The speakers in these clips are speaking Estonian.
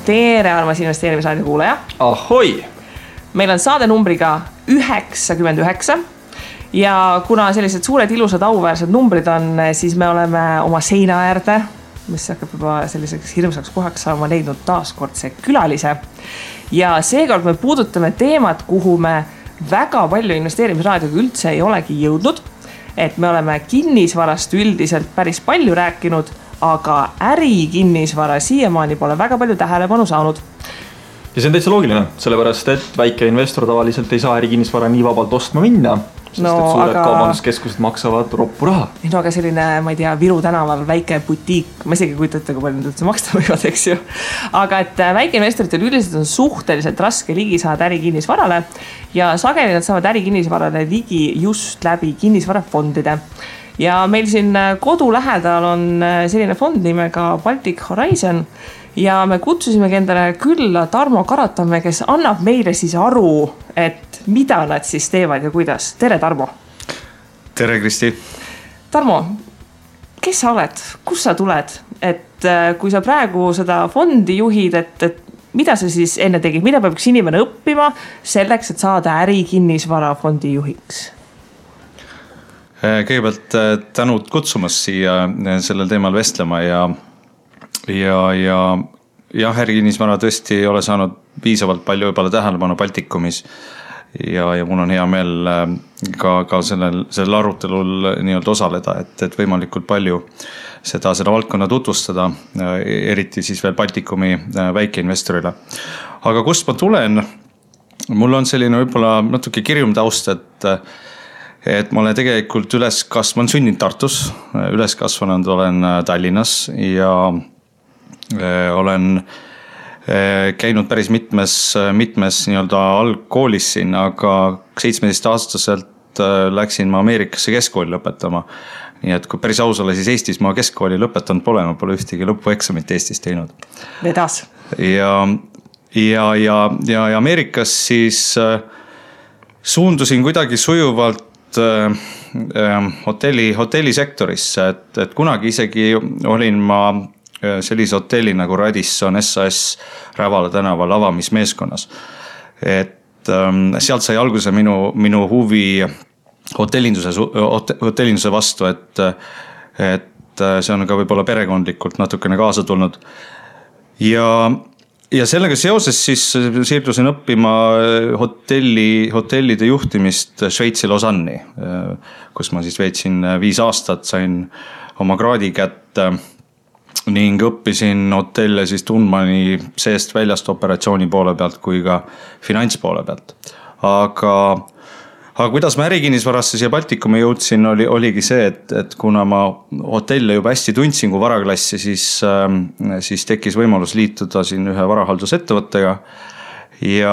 Tere, armas investeerimisraadio kuulaja. Ahoi! Meil on saade numbriga 99 ja kuna sellised suured ilusad auväärsed numbrid on, siis me oleme oma seina äärde, mis hakkab juba selliseks hirmsaks kohaks saama, leidnud taaskordse külalise. Ja seekord me puudutame teemat, kuhu me väga palju investeerimisraadioga üldse ei olegi jõudnud. Et me oleme kinnisvarast üldiselt päris palju rääkinud, aga ärikinnisvara siiamaani pole väga palju tähelepanu saanud. Ja see on täitsa loogiline, sellepärast et väike investor tavaliselt ei saa ärikinnisvara nii vabalt ostma minna, sest et suured kaubanduskeskused maksavad roppu raha. No aga selline, ma ei tea, Viru tänaval väike butiik, ma isegi kujutate, kui palju nüüd üldse maksta võivad, eks ju. Aga et väike investoritel üldiselt on suhteliselt raske ligi saada ärikinnisvarale ja sageli nad saavad ärikinnisvarale ligi just läbi kinnisvarafondide. Ja meil siin kodu lähedal on selline fond nimega Baltic Horizon ja me kutsusimegi endale külla Tarmo Karatamäe, kes annab meile siis aru, et mida nad siis teevad ja kuidas. Tere, Tarmo! Tere, Kristi! Tarmo, kes sa oled? Kus sa tuled? Et kui sa praegu seda fondi juhid, et mida sa siis enne tegid? Mida peab üks inimene õppima selleks, et saada ärikinnisvara fondi juhiks? Kõigepealt tänud kutsumast siia sellel teemal vestlema ja ärikinnisvara tõesti ei ole saanud piisavalt palju juba tähelepanu Baltikumis ja mul on hea meel ka sellel arutelul nii-öelda osaleda, et võimalikult palju seda valdkonna tutvustada, eriti siis veel Baltikumi väikeinvestorile. Aga kust ma tulen? Mul on selline võib-olla natuke kirjum taust, et ma olen tegelikult olen sündinud Tartus, üles kasvanud olen Tallinnas ja olen käinud päris mitmes nii-öelda algkoolis siin, aga 17-aastaselt läksin ma Ameerikasse keskkooli lõpetama. Nii et kui päris aus ole, siis Eestis ma keskkooli lõpetanud pole, ma pole ühtegi lõpueksamit Eestis teinud. Vedas. Ja Ameerikas siis suundusin kuidagi sujuvalt hotellisektorisse, et kunagi isegi olin ma sellise hotelli nagu Radisson SAS Rävala tänaval avamismeeskonnas. Et sealt sai alguse minu huvi hotellinduse vastu, et see on ka võib-olla perekondlikult natukene kaasa tulnud. Ja sellega seoses siis siirdusin õppima hotellide juhtimist Šveitsi Lausanne'i, kus ma siis veetsin 5 aastat, sain oma kraadi kätte ning õppisin hotelle siis tundma nii seest väljast operatsiooni poole pealt kui ka finantspoole pealt. Aga kuidas ma ärikinnisvarasse siia Baltikumi jõudsin, oligi see, et kuna ma hotelle juba hästi tundsin kui varaklassi, siis tekkis võimalus liituda siin ühe varahaldusettevõttega ja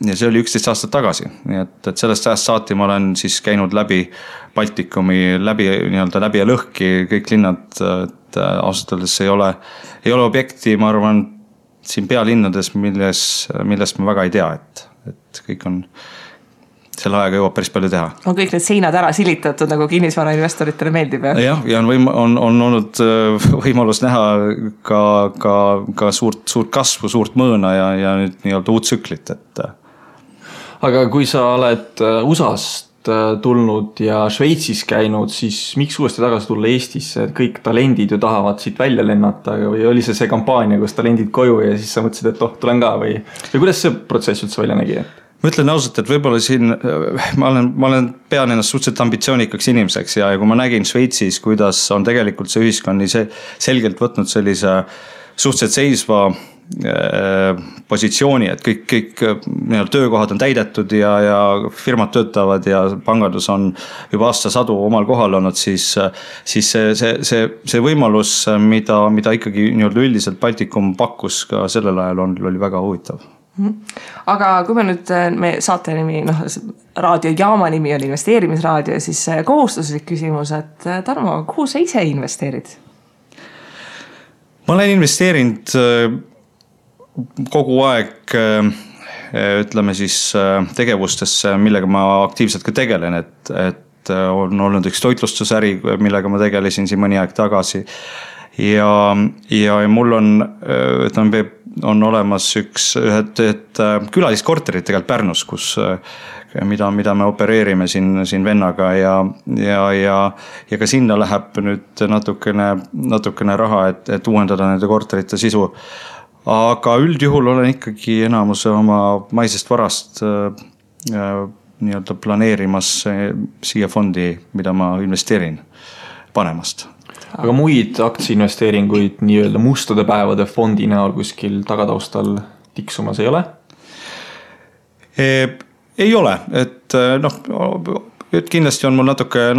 see oli 11 aastat tagasi. Nii et sellest ajast saati ma olen siis käinud läbi Baltikumi, läbi ja lõhki kõik linnad, et ausalt öeldes ei ole objekti, ma arvan, siin pealinnades, millest ma väga ei tea, et kõik on selle ajaga jõuab päris palju teha. On kõik need seinad ära silitatud, nagu kinnisvara investoritele meeldib. Ja on olnud võimalus näha ka suurt kasvu, suurt mõõna ja nüüd nii-öelda uut tsüklit. Aga kui sa oled USA-st tulnud ja Šveitsis käinud, siis miks uuesti tagasi tulla Eestisse? Kõik talendid ju tahavad siit välja lennata või oli see kampaania, kus talendid koju ja siis sa mõtlesid, et tulen ka või kuidas see protsess üldse välja nägi? Ma ütlen ausalt, et võib-olla siin ma olen pean ennast suhteliselt ambitsioonikaks inimeseks ja kui ma nägin Šveitsis, kuidas on tegelikult see ühiskond selgelt võtnud sellise suhteliselt seisva positsiooni, et kõik töökohad on täidetud ja firmad töötavad ja pangandus on juba aastasadu omal kohal olnud, siis see võimalus, mida ikkagi üldiselt Baltikum pakkus ka sellel ajal oli väga huvitav. Aga kui me nüüd saate nimi, raadiojaama nimi on investeerimisraadio, siis kohustuslik küsimus, et Tarmo, kuhu sa ise investeerid? Ma olen investeerinud kogu aeg, ütleme siis tegevustesse, millega ma aktiivselt ka tegelen, et on olnud üks toitlustusäri, millega ma tegelesin siin mõni aeg tagasi. ja mul on olemas ühed külaliskorterid tegelikult Pärnus, mida me opereerime siin vennaga ja ka sinna läheb nüüd natukene raha, et uuendada nende korterite sisu. Aga üldjuhul olen ikkagi enamuse oma maisest varast nii-öelda planeerimas siia fondi, mida ma investeerin panemast. Aga muid aktsiainvesteeringuid nii-öelda mustade päevade fondi näol kuskil tagataustal tiksumas ei ole? Ei ole, et kindlasti on mul natuke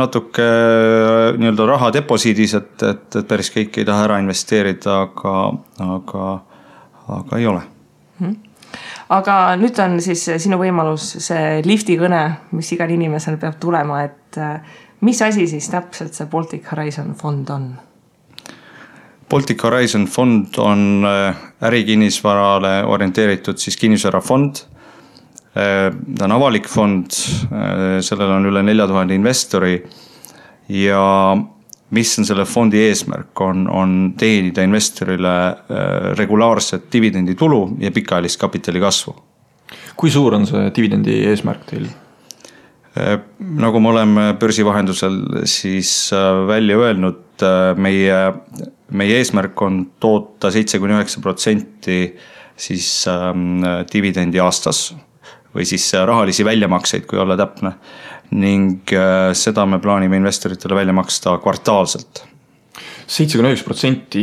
nii-öelda raha deposiidis, et päris kõik ei taha ära investeerida, aga ei ole. Aga nüüd on siis sinu võimalus see lifti kõne, mis igal inimesel peab tulema, et mis asi siis täpselt see Baltic Horizon fond on? Baltic Horizon fond on ärikinnisvarale orienteeritud siis kinnisvarafond. Ta on avalik fond, sellel on üle 4000 investori ja mis on selle fondi eesmärk, on teenida investorile regulaarset dividenditulu ja pikaajalist kapitali kasvu. Kui suur on see dividendi eesmärk teil? Nagu me oleme börsivahendusel siis välja öelnud, meie eesmärk on toota 7-9% siis dividendi aastas või siis rahalisi väljamakseid, kui olla täpne. Ning seda me plaanime investoritele välja maksta kvartaalselt. 7-9%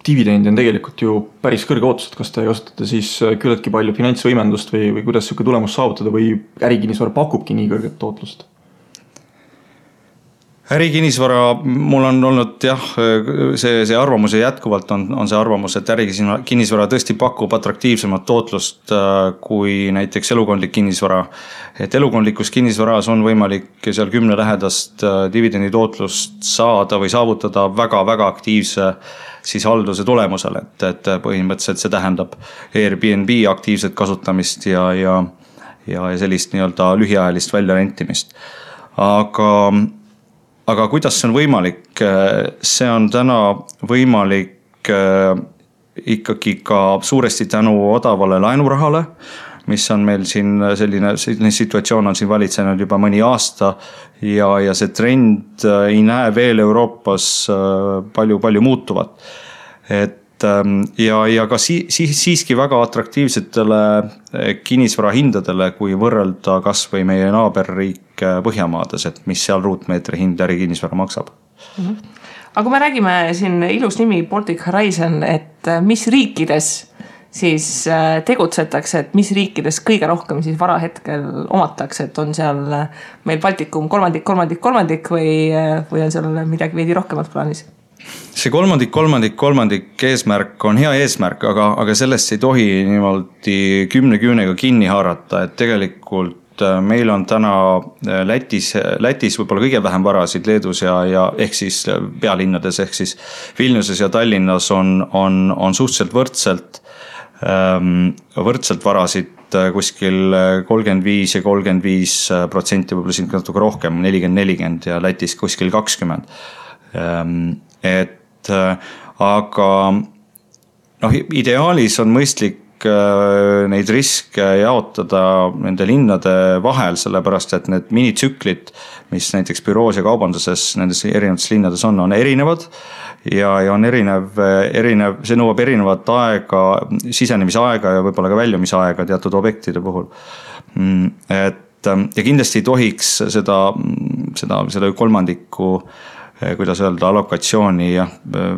dividendi on tegelikult ju päris kõrge ootus, et kas te kasutate siis küllaltki palju finantsvõimendust või kuidas selline tulemus saavutada või ärikinnisvara pakubki nii kõrget tootlust? Ärikinnisvara, mul on olnud see arvamus ja jätkuvalt on see arvamus, et ärikinnisvara tõesti pakub atraktiivsemat tootlust kui näiteks elukondlik kinnisvara. Et elukondlikus kinnisvaras on võimalik seal 10 lähedast dividendi tootlust saada või saavutada väga-väga aktiivse siis halduse tulemusel, et põhimõtteliselt see tähendab Airbnb aktiivset kasutamist ja sellist nii-öelda lühiajalist väljarentimist. Aga kuidas see on võimalik? See on täna võimalik ikkagi ka suuresti tänu odavale laenurahale, mis on meil siin selline situatsioon on siin valitsenud juba mõni aasta ja see trend ei näe veel Euroopas palju muutuvat. Ja ka siiski väga atraktiivsetele kinnisvara hindadele, kui võrrelda kas või meie naaberriik Põhjamaades, et mis seal ruutmeetri hind ärikinnisvara maksab. Aga kui me räägime siin ilus nimi Baltic Horizon, et mis riikides siis tegutsetakse, et mis riikides kõige rohkem siis vara hetkel omatakse, et on seal meil Baltikum kolmandik või on seal midagi veidi rohkemat plaanis? See kolmandik eesmärk on hea eesmärk, aga sellest ei tohi niimoodi 10 küünega kinni haarata, et tegelikult meil on täna Lätis võib-olla kõige vähem varasid, Leedus ja ehk siis pealinnades, ehk siis Vilniuses ja Tallinnas on suhteliselt võrdselt varasid kuskil 35 ja 35%, võib-olla siin natuke rohkem, 40 ja Lätis kuskil 20%. Aga ideaalis on mõistlik neid riske jaotada nende linnade vahel, sellepärast et need minitsüklid, mis näiteks büroos ja kaubanduses nendes erinevates linnades on erinevad ja on erinev, see nõuab erinevat aega, sisenemisaega ja võib-olla ka väljumisaega teatud objektide puhul. Ja kindlasti ei tohiks seda kolmandikku, kuidas öelda, allokatsiooni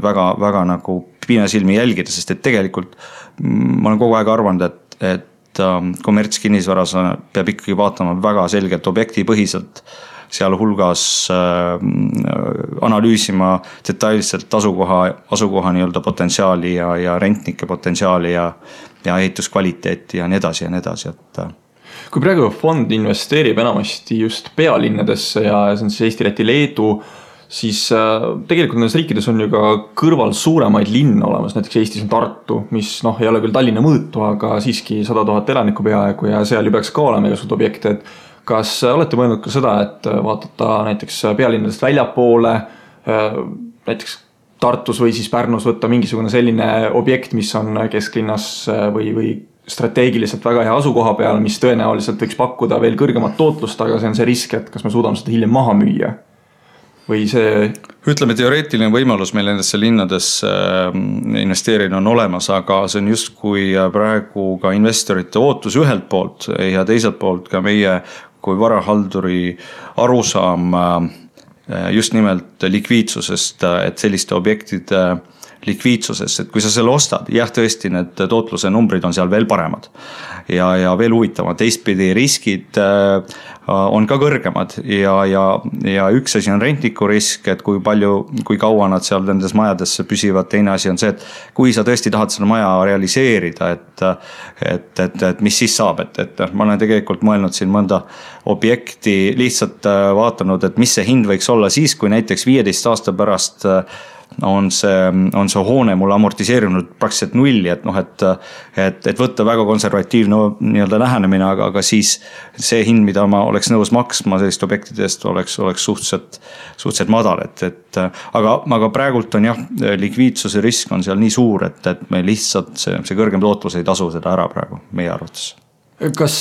väga nagu piinasilmi jälgida, sest et tegelikult ma olen kogu aeg arvanud, et kommertskinnisvaras peab ikkagi vaatama väga selgelt objektipõhiselt, seal hulgas analüüsima detailselt asukoha nii-öelda potentsiaali ja rentnike potentsiaali ja ehituskvaliteeti ja nii edasi. Kui praegu fond investeerib enamasti just pealinnadesse ja see on siis Eesti, Läti, Leedu, siis tegelikult nendes riikides on ju ka kõrval suuremaid linna olemas, näiteks Eestis on Tartu, mis ei ole küll Tallinna mõõtu, aga siiski 100 000 elanikku peaaegu ja seal ju peaks ka olema igasugused objekte, et kas olete mõelnud ka seda, et vaadata näiteks pealinnadest väljapoole, näiteks Tartus või siis Pärnus võtta mingisugune selline objekt, mis on kesklinnas või strateegiliselt väga hea asukoha peal, mis tõenäoliselt võiks pakkuda veel kõrgemat tootlust, aga see on see risk, et kas me suudame seda hiljem maha müüa või see... Ütleme, teoreetiline võimalus meil nendesse linnadesse investeerida on olemas, aga see on just kui praegu ka investorite ootus ühelt poolt ja teiselt poolt ka meie kui varahalduri arusaam just nimelt likviidsusest, et selliste objektide likviidsusest, et kui sa selle ostad, jah, tõesti need tootluse numbrid on seal veel paremad ja veel huvitavad. Teistpidi riskid on ka kõrgemad ja üks asi on rentniku risk, et kui kaua nad seal nendes majadesse püsivad, teine asi on see, et kui sa tõesti tahad seda maja realiseerida, et mis siis saab, et ma olen tegelikult mõelnud siin mõnda objekti, lihtsalt vaatanud, et mis see hind võiks olla siis, kui näiteks 15 aasta pärast on see hoone mulle amortiseerinud praktiliselt nulli, et võtta väga konservatiivne nii-öelda lähenemine, aga siis see hind, mida ma oleks nõus maksma sellist objektidest, oleks suhteliselt madal, aga praegult on jah, likviidsuse risk on seal nii suur, et me lihtsalt see kõrgem tootlus ei tasu seda ära praegu meie arvates. Kas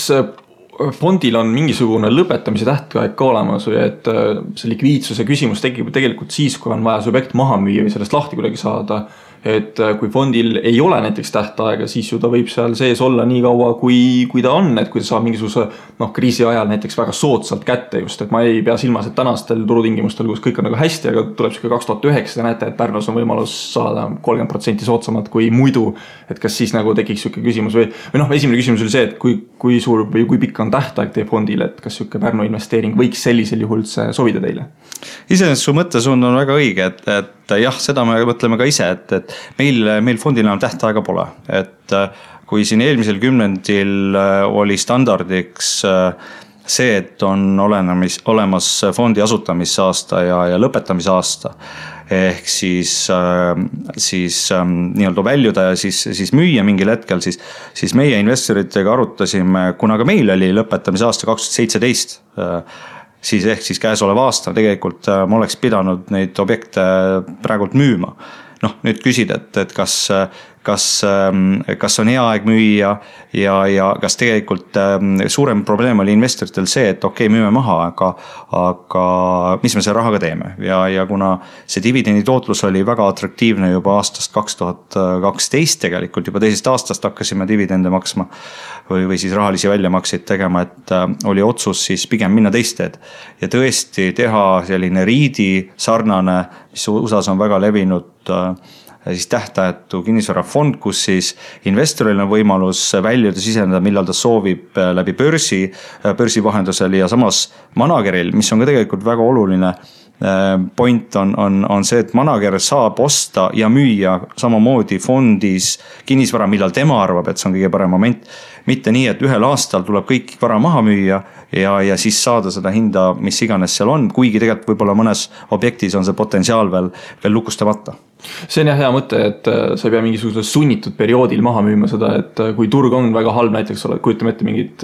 fondil on mingisugune lõpetamise tähtaeg ka olemas või et see likviidsuse küsimus tekib tegelikult siis, kui on vaja see objekt maha müüa või sellest lahti kuidagi saada, et kui fondil ei ole näiteks tähtaega, siis ju ta võib seal sees olla nii kaua, kui ta on, et kui ta saab mingisuguse kriisi ajal näiteks väga soodsalt kätte just, et ma ei pea silmas, et tänastel turutingimustel, kus kõik on nagu hästi, aga tuleb siuke 2009, te näete, et Pärnus on võimalus saada 30% soodsamalt kui muidu, et kas siis nagu tekiks siuke küsimus või esimene küsimus oli see, et kui suur või kui pikk on tähtaeg teie fondil, et kas siuke Pärnu investeering võiks sellisel juhul sobida teile? Iseenesest su mõttesuund on väga õige, et jah, seda me mõtleme ka ise, et meil fondil enam tähtaega pole, et kui siin eelmisel kümnendil oli standardiks see, et on olemas fondi asutamisaasta ja lõpetamisaasta, ehk siis nii-öelda väljuda ja siis müüa mingil hetkel, siis meie investoritega arutasime, kuna ka meil oli lõpetamisaasta 2017, siis käesolev aasta tegelikult ma oleks pidanud neid objekte praegult müüma. Nüüd küsid, et kas on hea aeg müüa ja kas tegelikult suurem probleem oli investoritel see, et okei, müüme maha, aga mis me selle rahaga teeme ja kuna see dividendi tootlus oli väga atraktiivne juba aastast 2012 tegelikult, juba teisest aastast hakkasime dividende maksma või siis rahalisi väljamakseid tegema, et oli otsus siis pigem minna teist teed ja tõesti teha selline riidi sarnane, mis USAs on väga levinud siis tähtajatu kinnisvarafond, kus siis investoril on võimalus väljuda, siseneda, millal ta soovib läbi börsi vahendusel ja samas manageril, mis on ka tegelikult väga oluline point on see, et manager saab osta ja müüa samamoodi fondis kinnisvara, millal tema arvab, et see on kõige parem moment. Mitte nii, et ühel aastal tuleb kõik vara maha müüa ja siis saada seda hinda, mis iganes seal on, kuigi tegelikult võib-olla mõnes objektis on see potentsiaal veel lukustamata. See on hea mõte, et sa ei pea mingisugusel sunnitud perioodil maha müüma seda, et kui turg on väga halb, näiteks kujutame ette mingit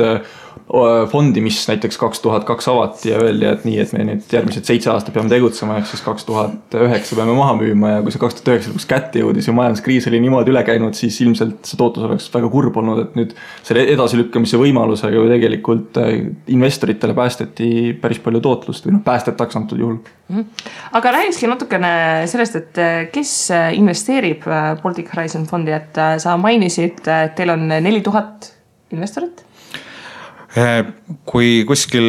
fondi, mis näiteks 2002 avati ja öeldi, et nii, et me nüüd järgmised 7 aastat peame tegutsema, ehk siis 2009 peame maha müüma ja kui see 2009 lõpuks kätte jõudis ja majanduskriis oli niimoodi üle käinud, siis ilmselt see tootlus oleks väga kurb olnud, et nüüd selle edasilükkamise võimalusega ju tegelikult investoritele päästeti päris palju tootlust või päästetaks antud juhul. Aga räägikski natukene sellest, et kes investeerib Baltic Horizon fondi, et sa mainisid, et teil on 4000 investorit? Kui kuskil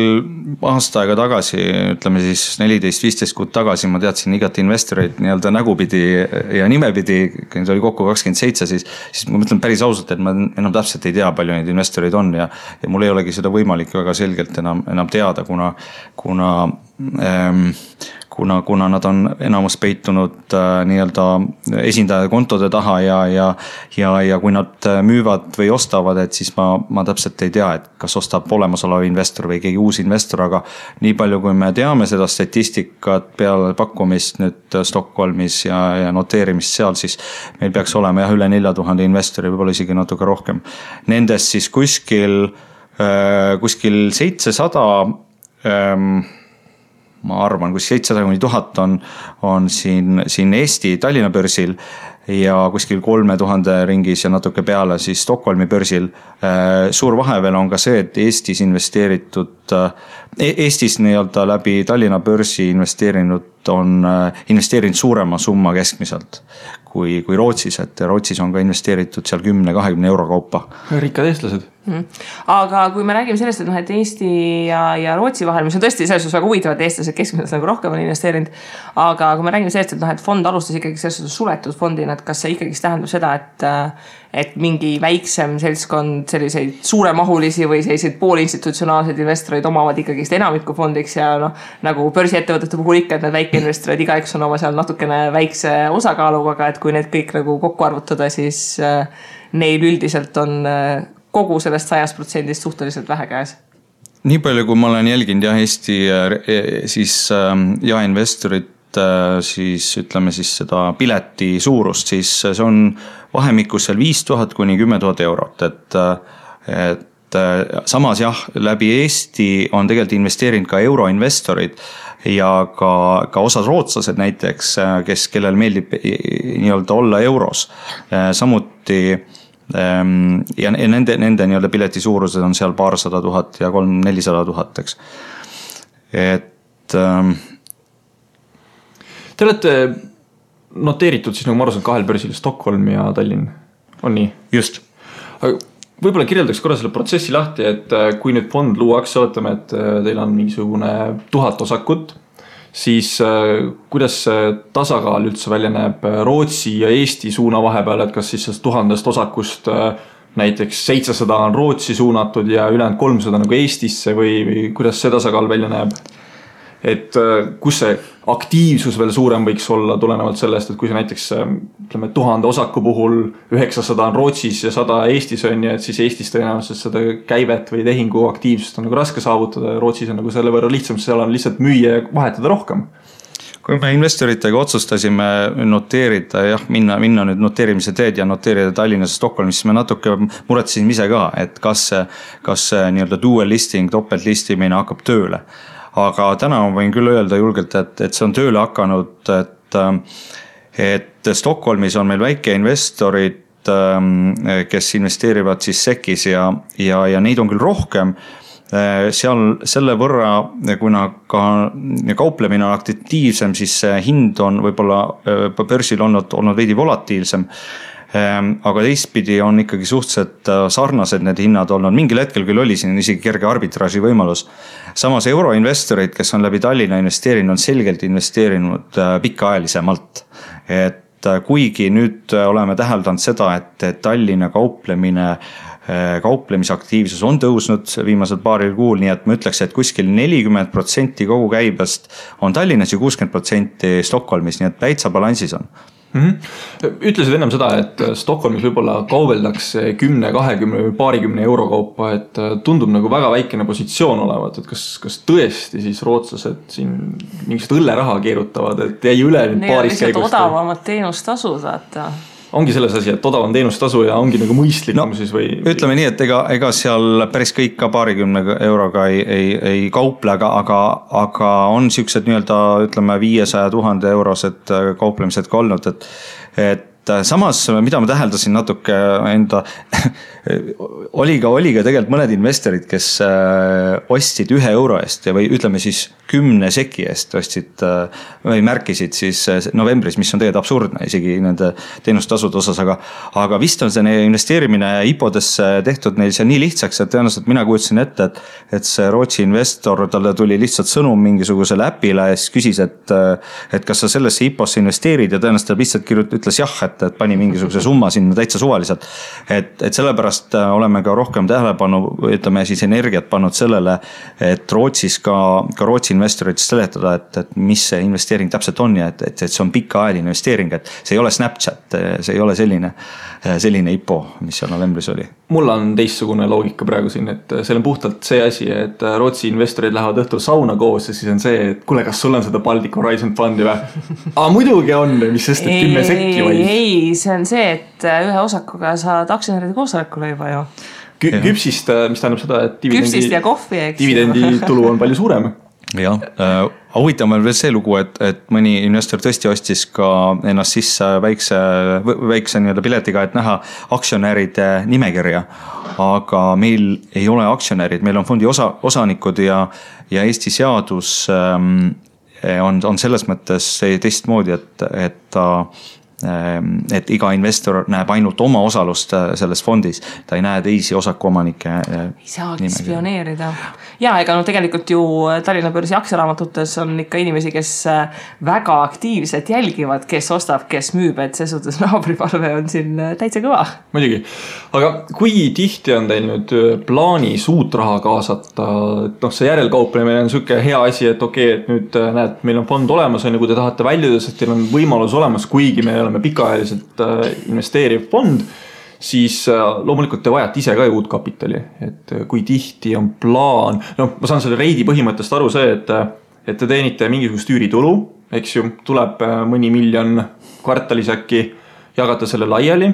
aasta aega tagasi, ütleme siis 14-15 kuud tagasi ma teadsin igat investoreid nii-öelda nägupidi ja nimepidi, see oli kokku 27, siis ma mõtlen päris ausalt, et ma enam täpselt ei tea, palju neid investoreid on ja mul ei olegi seda võimalik väga selgelt enam teada, kuna nad on enamus peitunud nii-öelda esindaja kontode taha ja kui nad müüvad või ostavad, et siis ma täpselt ei tea, et kas ostab olemasolev investor või keegi uus investor, aga nii palju kui me teame seda statistikat peale pakkumist nüüd Stockholmis ja noteerimist seal, siis meil peaks olema üle 4000 investori, võib-olla isegi natuke rohkem. Nendest siis kuskil 700 ma arvan, kus 700–1000 on siin Eesti Tallinna börsil ja kuskil 3000 ringis ja natuke peale siis Stockholmi börsil. Suur vahe veel on ka see, et Eestis nii-öelda läbi Tallinna börsi investeerinud suurema summa keskmiselt kui Rootsis, et Rootsis on ka investeeritud seal 10-20 euro kaupa. Rikkad eestlased. Aga kui me räägime sellest, et Eesti ja Rootsi vahel, mis on tõesti selles suhtes väga huvitav, et eestlased keskmiselt nagu rohkem on investeerinud, aga kui me räägime sellest, et fond alustas ikkagi selles suhtes suletud fondina, et kas see ikkagi tähendab seda, et mingi väiksem seltskond selliseid suuremahulisi või selliseid poolinstitutsionaalseid investoreid omavad ikkagi enamiku fondiks ja nagu börsiettevõtete puhul ikka, et need väikeinvestorid igaüks on oma seal natukene väikse osakaaluga, aga et kui need kõik nagu kokku arvutada, siis neil üldiselt on kogu sellest 100% suhteliselt vähe käes. Nii palju, kui ma olen jälginud Eesti siis jaeinvestorit, siis ütleme siis seda pileti suurust, siis see on vahemikus seal 5000 kuni 10 000 eurot, et samas jah, läbi Eesti on tegelikult investeerinud ka euroinvestorid ja ka osad rootslased näiteks, kellel meeldib nii-öelda olla euros, samuti ja nende nii-öelda pileti suurused on seal paarsada tuhat ja 300–400 000, eks. Et te olete noteeritud siis nagu ma arvan kahel börsil, Stockholm ja Tallinn, on nii? Just. Aga võib-olla kirjeldaks korra selle protsessi lahti, et kui nüüd fond luuakse, oletame, et teil on mingisugune 1000 osakut, siis kuidas tasakaal üldse välja näeb Rootsi ja Eesti suuna vahepeal, et kas siis 1000 osakust näiteks 700 on Rootsi suunatud ja ülejäänud 300 nagu Eestisse või kuidas see tasakaal välja näeb? Et kus see aktiivsus veel suurem võiks olla tulenevalt sellest, et kui see näiteks ütleme 1000 osaku puhul 900 on Rootsis ja 100 Eestis on ja et siis Eestis tõenäoliselt seda käivet või tehingu aktiivsust on nagu raske saavutada ja Rootsis on nagu selle võrra lihtsam, seal on lihtsalt müüa ja vahetada rohkem. Kui me investoritega otsustasime noteerida, minna nüüd noteerimise teed ja noteerida Tallinnas ja Stockholmis, siis me natuke muretsime ise ka, et kas nii-öelda dual listing, topelt listimine hakkab tööle. Aga täna ma võin küll öelda julgelt, et see on tööle hakanud, et Stockholmis on meil väikeinvestorid, kes investeerivad siis SEKis ja neid on küll rohkem. Seal selle võrra, kuna ka kauplemine on aktiivsem, siis hind on võib-olla börsil olnud veidi volatiilsem. Aga teistpidi on ikkagi suhteliselt sarnased need hinnad olnud. Mingil hetkel küll oli siin isegi kerge arbitraaži võimalus. Samas euroinvestorid, kes on läbi Tallinna investeerinud, on selgelt investeerinud pikaajalisemalt. Et kuigi nüüd oleme täheldanud seda, et Tallinna kauplemisaktiivsus on tõusnud viimasel paaril kuul, nii et ma ütleks, et kuskil 40% kogu käibest on Tallinnas ja 60% Stockholmis, nii et täitsa balansis on. Ütlesid ennem seda, et Stockholmis võib-olla kaubeldakse 10, 20 või paarikümne euro kaupa, et tundub nagu väga väikene positsioon olevat, et kas tõesti siis rootslased siin mingisugust õlleraha keerutavad, et jäi üle nüüd paarist käigust? Odavamad teenustasud, vaata. Ongi selles asi, et odavam teenustasu ja ongi nagu mõistlikum siis või? Ütleme nii, et ega seal päris kõik ka paarikümne euroga ei kauple, aga on siuksed nii-öelda ütleme 500 000 eurosed kauplemised ka olnud, et samas, mida ma täheldasin natuke enda, oli ka tegelikult mõned investorid, kes ostsid 1 euro eest või ütleme siis 10 seki eest ostsid või märkisid siis novembris, mis on tegelikult absurdne isegi nende teenustasude osas, aga vist on see investeerimine IPO-desse tehtud neil see nii lihtsaks, et tõenäoliselt mina kujutasin ette, et see Rootsi investor, talle tuli lihtsalt sõnum mingisugusele äpile ja siis küsis, et kas sa sellesse IPO-sse investeerid ja tõenäoliselt lihtsalt ütles jah, et pani mingisuguse summa sinna täitsa suvaliselt. Et sellepärast oleme ka rohkem tähelepanu, ütleme siis energiat pannud sellele, et Rootsis ka Rootsi investorid seletada, et mis see investeering täpselt on ja et see on pikaajaline investeering, et see ei ole Snapchat, see ei ole selline IPO, mis seal novembris oli. Mul on teistsugune loogika praegu siin, et see on puhtalt see asi, et Rootsi investorid lähevad õhtul sauna koos ja siis on see, et kuule, kas sul on seda Baltic Horizon Fundi või? Muidugi on, mis sest, et 10 sekki vaid. Ei, see on see, et ühe osakuga saad aktsionäride koosolekule juba ju. Küpsist, mis tähendab seda, et küpsist ja kohvi, eks. Dividendi tulu on palju suurem. Jah, huvitav on veel see lugu, et mõni investor tõesti ostis ka ennast sisse väikse nii-öelda piletiga, et näha aktsionäride nimekirja. Aga meil ei ole aktsionärid, meil on fondi osanikud ja Eesti seadus on selles mõttes teistmoodi, et iga investor näeb ainult oma osalust selles fondis, ta ei näe teisi osakuomanike ei saagi spioneerida. Ja ega tegelikult ju Tallinna börsi aktsiaraamatutes on ikka inimesi, kes väga aktiivselt jälgivad, kes ostab, kes müüb, et see suhtes naabriparve on siin täitsa kõva. Muidugi, aga kui tihti on teil nüüd plaanis uut raha kaasata, et see järelkauplemine on selline hea asi, et okei, et nüüd näed, meil on fond olemas, kui te tahate väljuda, sest teil on võimalus olemas, kuigi me oleme pikaajaliselt investeeriv fond, siis loomulikult te vajate ise ka uut kapitali, et kui tihti on plaan, ma saan selle reidi põhimõttest aru see, et te teenite mingisugust üüritulu, eks ju, tuleb mõni miljon kvartalis äkki, jagate selle laiali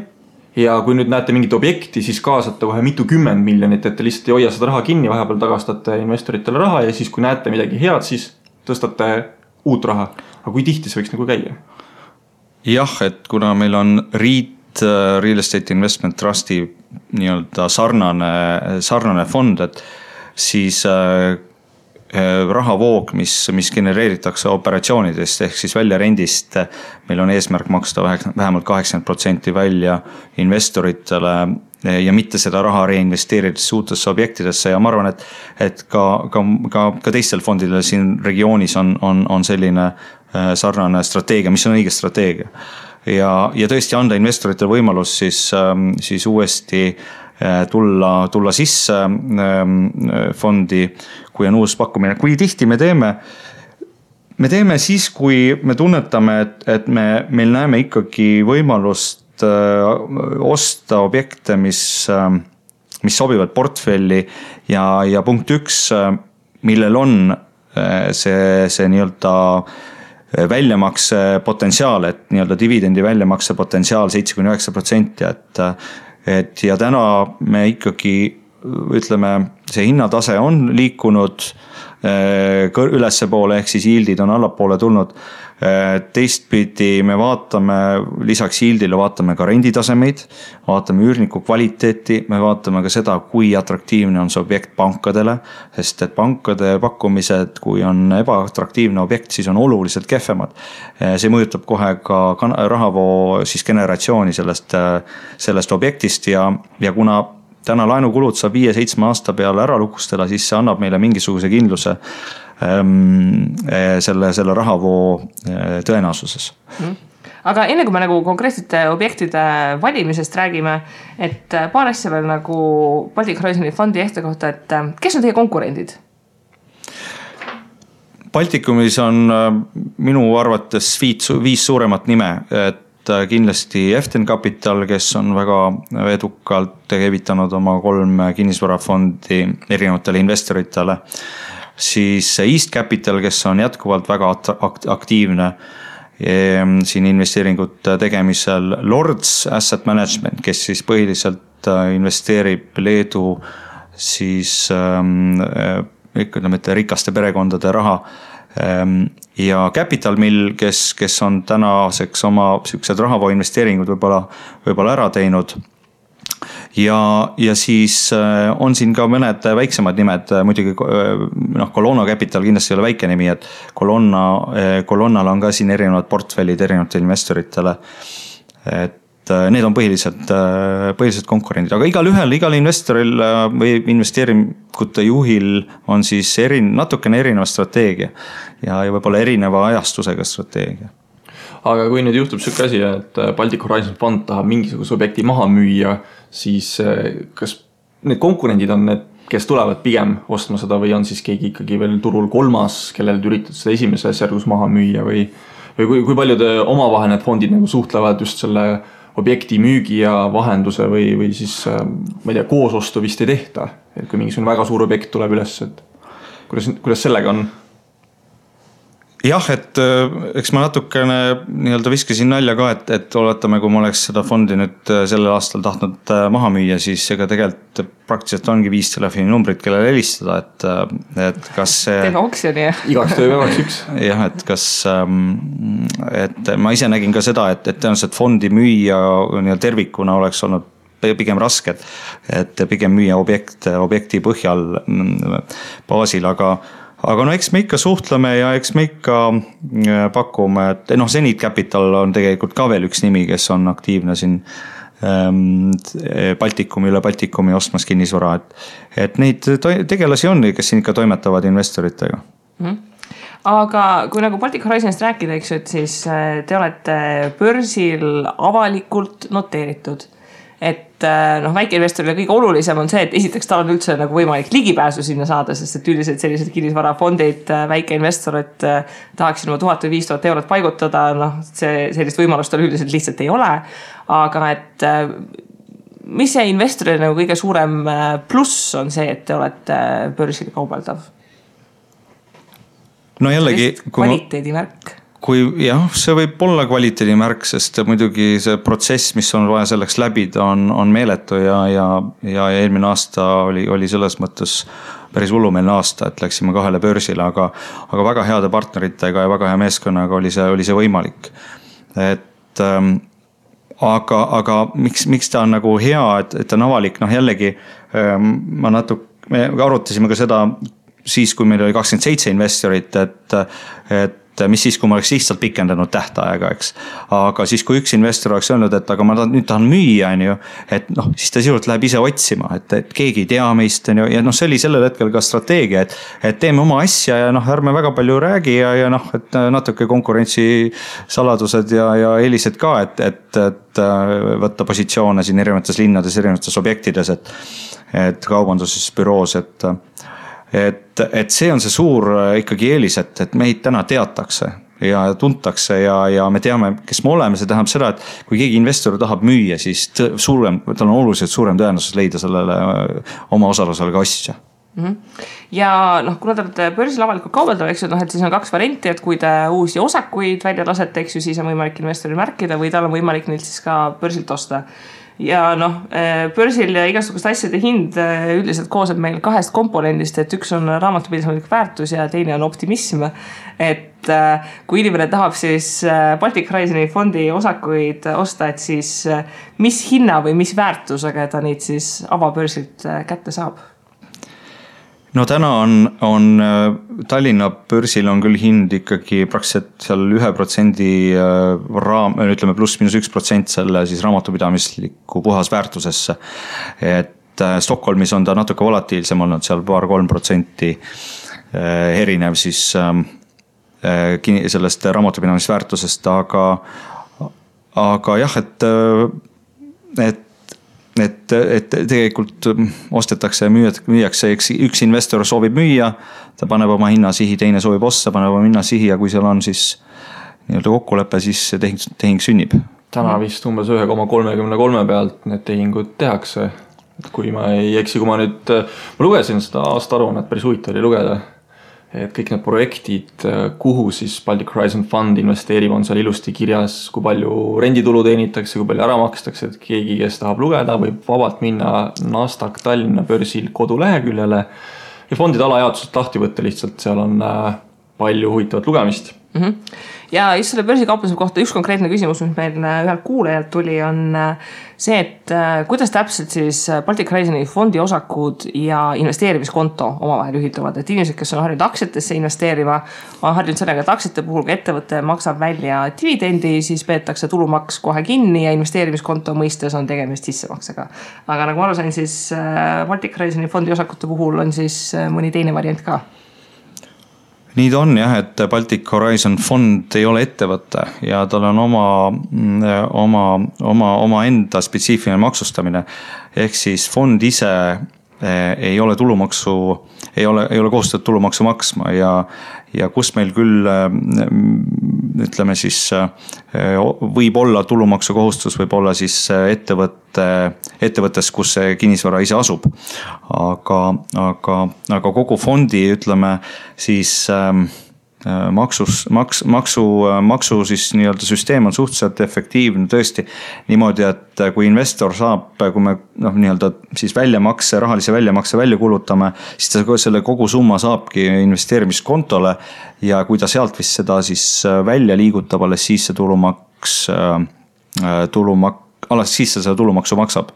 ja kui nüüd näete mingit objekti, siis kaasate kohe mitukümmend miljonit, et te lihtsalt ei hoia seda raha kinni, vahepeal tagastate investoritele raha ja siis kui näete midagi head, siis tõstate uut raha. Aga kui tihti see võiks nagu käia? Jah, et kuna meil on Real Estate Investment Trusti nii-öelda sarnane fond, et siis rahavoog, mis genereeritakse operatsioonidest ehk siis väljarendist, meil on eesmärk maksta vähemalt 80% välja investoritele ja mitte seda raha reinvesteerides uutesse objektidesse ja ma arvan, et ka teistel fondidel siin regioonis on selline sarnane strateegia, mis on õige strateegia. Ja tõesti anda investoritele võimalus siis uuesti tulla sisse fondi, kui on uus pakkumine. Kui tihti me teeme siis, kui me tunnetame, et meil näeme ikkagi võimalust osta objekte, mis sobivad portfelli ja punkt 1, millel on see nii-öelda väljamakse potentsiaal, et nii-öelda dividendi väljamakse potentsiaal 7-9%, et ja täna me ikkagi ütleme, see hinnatase on liikunud ülesse poole, ehk siis yieldid on allapoole tulnud. Teistpidi me vaatame, lisaks yieldile vaatame ka renditasemeid, vaatame üürniku kvaliteeti, me vaatame ka seda, kui atraktiivne on see objekt pankadele, sest et pankade pakkumised, kui on ebaatraktiivne objekt, siis on oluliselt kehvemad. See mõjutab kohe ka rahavoo siis generatsiooni sellest objektist ja kuna täna laenukulud saab 5-7 aasta peale ära lukustela, siis see annab meile mingisuguse kindluse selle rahavoo tõenäosuses. Aga enne kui me nagu konkreetsete objektide valimisest räägime, et paar asja veel nagu Baltic Horizoni fondi ehte kohta, et kes on teie konkurendid? Baltikumis on minu arvates 5 suuremat nime, et kindlasti Eften Capital, kes on väga edukalt evitanud oma 3 kinnisvarafondi erinevatele investoritele, siis East Capital, kes on jätkuvalt väga aktiivne siin investeeringute tegemisel, Lords Asset Management, kes siis põhiliselt investeerib Leedu siis ütleme, et rikaste perekondade raha ja Capital Mill, kes on tänaseks oma sellised rahavoo investeeringud võib-olla ära teinud. Ja siis on siin ka mõned väiksemad nimed, muidugi Colonna Capital kindlasti ei ole väike nimi, et Colonnal on ka siin erinevad portfellid erinevatele investoritele, et need on põhiliselt konkurendid, aga igal investoril või investeeringute juhil on siis natukene erineva strateegia ja võib-olla erineva ajastusega strateegia. Aga kui nüüd juhtub selline asi, et Baltic Horizon fond tahab mingisuguse objekti maha müüa, siis kas need konkurendid on need, kes tulevad pigem ostma seda või on siis keegi ikkagi veel turul 3, kellel üritad seda esimeses järgus maha müüa või kui palju te omavahel need fondid nagu suhtlevad just selle objekti müügi ja vahenduse või siis, ma ei tea, koosostu vist ei tehta, et kui mingisugune väga suur objekt tuleb üles, et kuidas sellega on? jah, et eks ma natukene nii-öelda viskasin nalja ka, et oletame, kui ma oleks seda fondi nüüd sellel aastal tahtnud maha müüa, siis ega tegelikult praktiliselt ongi 5 telefoninumbrit, kellele helistada, et kas see... Teeme oksjoni. Igaks tööpäevaks üks. Jah, et kas, et ma ise nägin ka seda, et tõenäoliselt fondi müüa tervikuna oleks olnud pigem raske, et pigem müüa objekti põhjal baasil, aga no eks me ikka suhtleme ja eks me ikka pakume, et Zenit Capital on tegelikult ka veel üks nimi, kes on aktiivne siin üle Baltikumi ostmas kinnisvara, et neid tegelasi on, kes siin ikka toimetavad investoritega. Aga kui nagu Baltic Horizonist rääkida, eks, et siis te olete börsil avalikult noteeritud. Et väikeinvestorile kõige olulisem on see, et esiteks tal on üldse nagu võimalik ligipääsu sinna saada, sest et üldiselt sellised kinnisvarafondid väikeinvestorid tahaksid oma 1000 või 5000 eurot paigutada, sellist võimalust tal üldiselt lihtsalt ei ole. Aga et mis see investorile nagu kõige suurem pluss on see, et te olete börsil kaubeldav? No jällegi... Kvaliteedimärk. Kui jah, see võib olla kvaliteedimärk, sest muidugi see protsess, mis on vaja selleks läbida, on meeletu ja eelmine aasta oli selles mõttes päris hullumeelne aasta, et läksime 2 börsile, aga väga heade partneritega ja väga hea meeskonnaga oli see võimalik. Et aga miks ta on nagu hea, et ta on avalik, jällegi me arutasime ka seda siis, kui meil oli 27 investorit, et mis siis, kui ma oleks lihtsalt pikendanud tähtaega, eks. Aga siis, kui üks investor oleks öelnud, et aga ma nüüd tahan müüa, et siis ta sisuliselt läheb ise otsima, et keegi ei tea meist, ja see oli sellel hetkel ka strateegia, et teeme oma asja ja ärme väga palju räägi ja et natuke konkurentsisaladused ja eelised ka, et võtta positsioone siin erinevates linnades, erinevates objektides, et kaubanduses, büroos, et see on see suur ikkagi eelis, et meid täna teatakse ja tuntakse ja me teame, kes me oleme. See tähendab seda, et kui keegi investor tahab müüa, siis tal on oluliselt suurem tõenäosus leida sellele oma osalusele ka ostja. Ja kuna te olete börsil avalikult kaubeldav, eks ju, et siis on 2 varianti, et kui te uusi osakuid välja lasete, eks ju, siis on võimalik investoril märkida või tal on võimalik neilt siis ka börsilt osta. Ja börsil ja igasugust asjade hind üldiselt kooseb meil 2 komponendist, et üks on raamatupidamislik väärtus ja teine on optimism. Et kui inimene tahab siis Baltic Horizoni fondi osakuid osta, et siis mis hinna või mis väärtusega ta neid siis avabörsilt kätte saab? No täna on Tallinna börsil on küll hind ikkagi praktiliselt seal 1% ütleme +-1% selle siis raamatupidamisliku puhas väärtusesse. Et Stockholmis on ta natuke volatiilsem olnud, seal 2-3% erinev siis sellest raamatupidamisväärtusest, aga jah, et tegelikult ostetakse ja müüakse, üks investor soovib müüa, ta paneb oma hinnasihi, teine soovib osta, paneb oma hinnasihi ja kui seal on siis nii-öelda kokkulepe, siis tehing sünnib. Täna vist umbes 1,33 pealt need tehingud tehakse. Kui ma ei eksi, kui ma lugesin seda aastaaruannet, päris huvitav oli lugeda, et kõik need projektid, kuhu siis Baltic Horizon Fund investeerib, on seal ilusti kirjas, kui palju renditulu teenitakse, kui palju ära makstakse, et keegi, kes tahab lugeda, võib vabalt minna Nasdaq Tallinna börsil koduleheküljele ja fondide alajaotused lahti võtta lihtsalt, seal on palju huvitavat lugemist. Ja just selle börsikauplemise kohta üks konkreetne küsimus, mis meil ühelt kuulajalt tuli, on see, et kuidas täpselt siis Baltic Horizoni fondi osakud ja investeerimiskonto omavahel ühilduvad. Et inimesed, kes on harjunud aktsiatesse investeerima, on harjunud sellega, et aktsiate puhul, kui ettevõte maksab välja dividendi, siis peetakse tulumaks kohe kinni ja investeerimiskonto mõistes on tegemist sissemaksega. Aga nagu ma aru sain, siis Baltic Horizoni fondi osakute puhul on siis mõni teine variant ka. Nii ta on jah, et Baltic Horizon fond ei ole ettevõte ja tal on oma enda spetsiifiline maksustamine. Ehk siis fond ise ei ole kohustatud tulumaksu maksma ja kus meil küll ütleme siis võib olla tulumaksu kohustus, võib olla siis ettevõttes, kus see kinnisvara ise asub. Aga kogu fondi ütleme siis maksu siis nii-öelda süsteem on suhteliselt efektiivne tõesti niimoodi, et kui investor saab, kui me nii-öelda siis rahalise väljamakse välja kulutame, siis ta selle kogu summa saabki investeerimiskontole ja kui ta sealt vist seda siis välja liigutab, alles siis see alles siis seda tulumaksu maksab.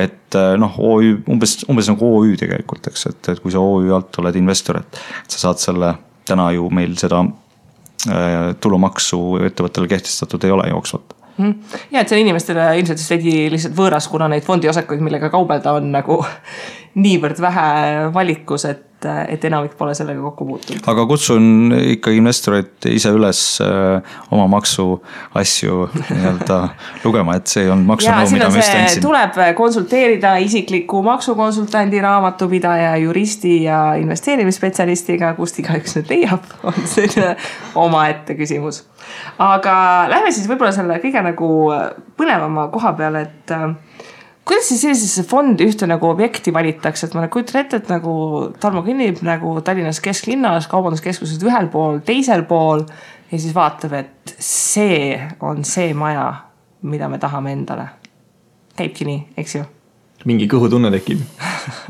Et OÜ, umbes nagu OÜ tegelikult, eks, et kui sa OÜ alt oled investor, et sa saad selle, täna ju meil seda tulumaksu ettevõttele kehtestatud ei ole jooksvalt. Ja, et see on inimestele ilmselt lihtsalt võõras, kuna neid fondiosakuid, millega kaubelda on nagu niivõrd vähe valikus, et enamik pole sellega kokku puutunud. Aga kutsun ikkagi investorid ise üles oma maksu asju lugema, et see on maksunõu, mida ma just andsin. Tuleb konsulteerida isikliku maksukonsultandi, raamatupidaja, juristi ja investeerimisspetsialistiga, kust igaüks nüüd leiab, on selline omaette küsimus. Aga lähme siis võib-olla selle kõige nagu põnevama koha peale, et kuidas siis sellisesse fondi ühte nagu objekti valitakse, et ma kujutan ette, et nagu Tarmo kõnnib nagu Tallinnas kesklinnas, kaubanduskeskused ühel pool, teisel pool ja siis vaatab, et see on see maja, mida me tahame endale. Käibki nii, eks ju? Mingi kõhutunne tekib.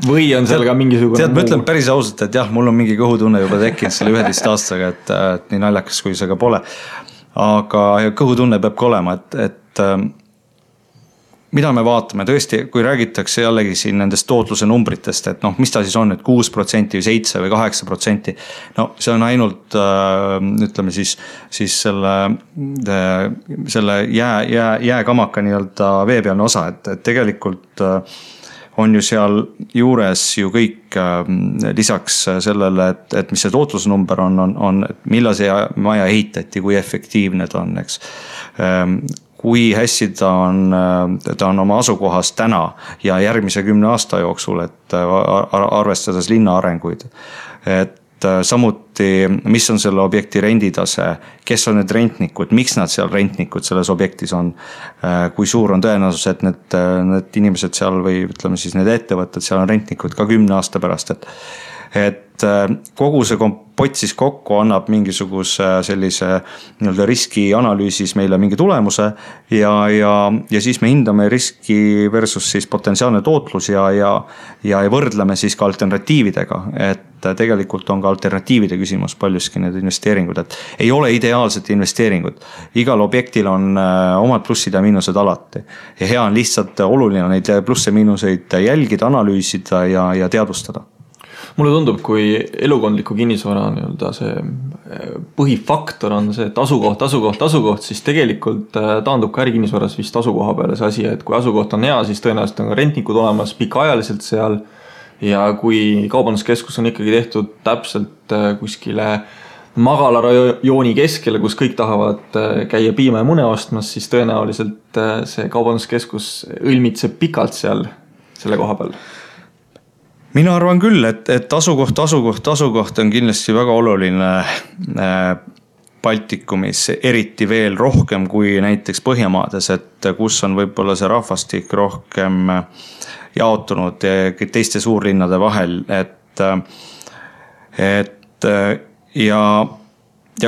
Või on seal ka mingisugune... Tead, ma ütlen päris ausalt, et jah, mul on mingi kõhutunne juba tekkinud selle 11 aastaga, et nii naljakas, kui see ka pole. Aga kõhutunne peab ka olema, et mida me vaatame tõesti, kui räägitakse jällegi siin nendest tootluse numbritest, et mis ta siis on, et 6% või 7% või 8%. No see on ainult, ütleme siis selle jääkamaka nii-öelda veepealne osa, et tegelikult on ju seal juures ju kõik lisaks sellele, et mis see tootlusnumber on, et millal see maja ehitati, kui efektiivne ta on, eks. Kui hästi ta on oma asukohas täna ja järgmise 10 aasta jooksul, et arvestades linna arenguid. Et samuti, mis on selle objekti renditase, kes on need rentnikud, miks nad seal rentnikud selles objektis on, kui suur on tõenäosus, et need inimesed seal või ütleme siis need ettevõtted seal on rentnikud ka 10 aasta pärast, et kogu see kompott siis kokku annab mingisuguse sellise nii-öelda riskianalüüsis meile mingi tulemuse ja siis me hindame riski versus siis potentsiaalne tootlus ja võrdleme siis ka alternatiividega, et tegelikult on ka alternatiivide küsimus paljuski need investeeringud, et ei ole ideaalset investeeringut. Igal objektil on omad plussid ja miinused alati ja hea on lihtsalt oluline neid plusse miinuseid jälgida, analüüsida ja teadvustada. Mulle tundub, kui elukondliku kinnisvara see põhifaktor on see, et asukoht, siis tegelikult taandub ka ärikinnisvaras vist asukoha peale see asi, et kui asukoht on hea, siis tõenäoliselt on ka rentnikud olemas pikaajaliselt seal ja kui kaubanduskeskus on ikkagi tehtud täpselt kuskile magalarajooni keskele, kus kõik tahavad käia piima ja mune ostmas, siis tõenäoliselt see kaubanduskeskus õlmitseb pikalt seal selle koha peal. Mina arvan küll, et asukoht on kindlasti väga oluline Baltikumis, eriti veel rohkem kui näiteks Põhjamaades, et kus on võib-olla see rahvastik rohkem jaotunud teiste suurlinnade vahel, ja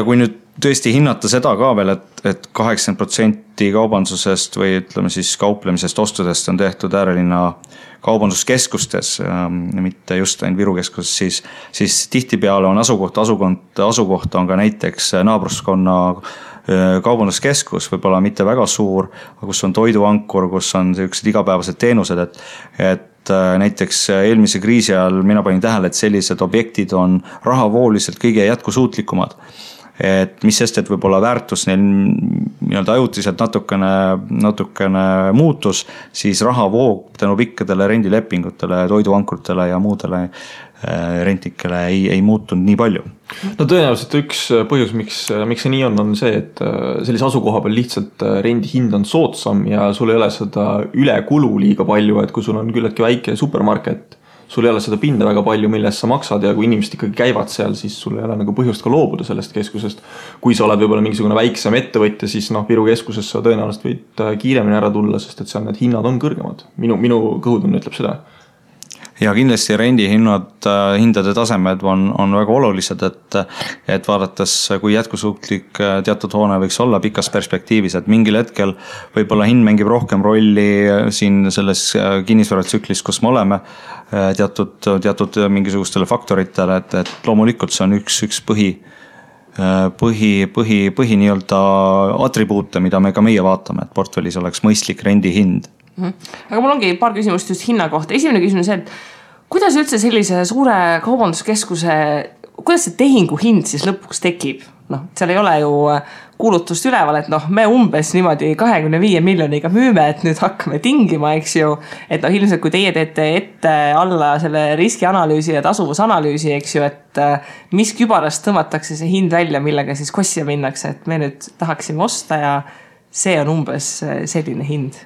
kui nüüd tõesti hinnata seda ka veel, et 80% kaubandusest või ütleme siis kauplemisest ostudest on tehtud äärelinna kaubanduskeskustes, mitte just ainult Viru keskuses, siis tihtipeale on asukoht on ka näiteks naabruskonna kaubanduskeskus, võib-olla mitte väga suur, kus on toiduankur, kus on sellised igapäevased teenused, et näiteks eelmise kriisi ajal mina panin tähele, et sellised objektid on rahavooliselt kõige jätkusuutlikumad. Et mis sest, et võib-olla väärtus neil nii-öelda ajutiselt natukene muutus, siis rahavoog tänu pikkadele rendilepingutele, toiduankurtele ja muudele rentnikele ei muutunud nii palju. No tõenäoliselt üks põhjus, miks see nii on see, et sellise asukoha peal lihtsalt rendi hind on soodsam ja sul ei ole seda ülekulu liiga palju, et kui sul on küllaltki väike supermarket, sul ei ole seda pinda väga palju, millest sa maksad ja kui inimesed ikkagi käivad seal, siis sul ei ole nagu põhjust ka loobuda sellest keskusest. Kui sa oled võib-olla mingisugune väiksem ettevõtja, siis Viru keskuses sa tõenäoliselt võid kiiremini ära tulla, sest et seal need hinnad on kõrgemad. Minu kõhutunne ütleb seda. Ja kindlasti hindade tasemed on väga olulised, et vaadates, kui jätkusuutlik teatud hoone võiks olla pikas perspektiivis, et mingil hetkel võib-olla hind mängib rohkem rolli siin selles kinnisvaratsüklis, kus me oleme teatud mingisugustele faktoritele, et loomulikult see on üks põhi nii-öelda atribuute, mida me ka meie vaatame, et portfellis oleks mõistlik rendihind. Aga mul ongi paar küsimust just hinna kohta. Esimene küsimus on see, et kuidas üldse sellise suure kaubanduskeskuse, kuidas see tehingu hind siis lõpuks tekib? Seal ei ole ju kuulutust üleval, et me umbes niimoodi 25 miljoniga müüme, et nüüd hakkame tingima, eks ju. Et ilmselt kui teie teete ette alla selle riskianalüüsi ja tasuvusanalüüsi, eks ju, et mis kübarast tõmmatakse see hind välja, millega siis kossia minnakse, et me nüüd tahaksime osta ja see on umbes selline hind.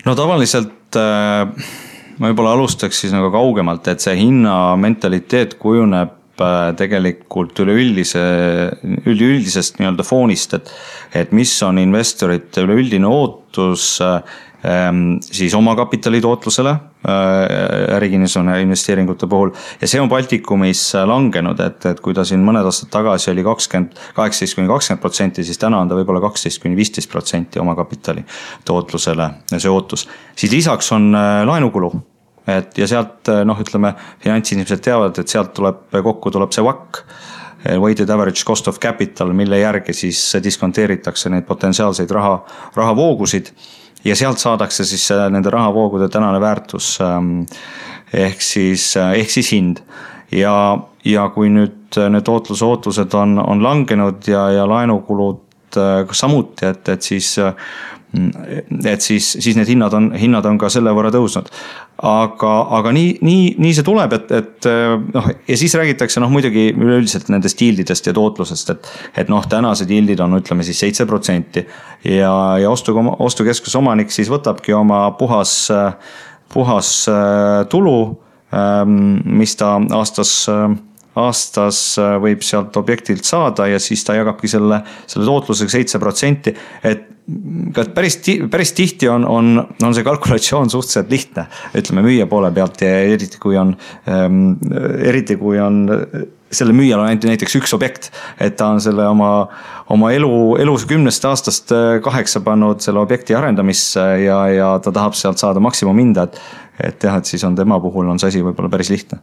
No tavaliselt ma võib-olla alustaks siis nagu kaugemalt, et see hinna mentaliteet kujuneb tegelikult üleüldisest nii-öelda foonist, et mis on investorite üleüldine ootus siis oma kapitali tootlusele ärikinnisvara investeeringute puhul ja see on Baltikumis langenud, et kui ta siin mõned aastad tagasi oli 18-20%, siis täna on ta võib-olla 12-15% oma kapitali tootlusele see ootus. Siis lisaks on laenukulu. Ja sealt, ütleme, finantsinimesed teavad, et sealt kokku tuleb see WACC, weighted average cost of capital, mille järgi siis diskonteeritakse neid potentsiaalseid rahavoogusid ja sealt saadakse siis nende rahavoogude tänane väärtus ehk siis hind. Ja kui nüüd need tootlusootused on langenud ja laenukulud samuti, et siis need hinnad on ka selle võrra tõusnud. Aga nii see tuleb, ja siis räägitakse muidugi üleüldiselt nendest yieldidest ja tootlusest, et tänased yieldid on, ütleme siis 7% ja ostukeskuse omanik siis võtabki oma puhas tulu, mis ta aastas võib sealt objektilt saada ja siis ta jagabki selle tootlusega 7%, et päris tihti on see kalkulatsioon suhteliselt lihtne, ütleme müüja poole pealt ja eriti kui on selle müüjal on näiteks üks objekt, et ta on selle oma elus 10 aastast 8 pannud selle objekti arendamisse ja ta tahab sealt saada maksimumhinda, et siis on tema puhul on see asi võib-olla päris lihtne.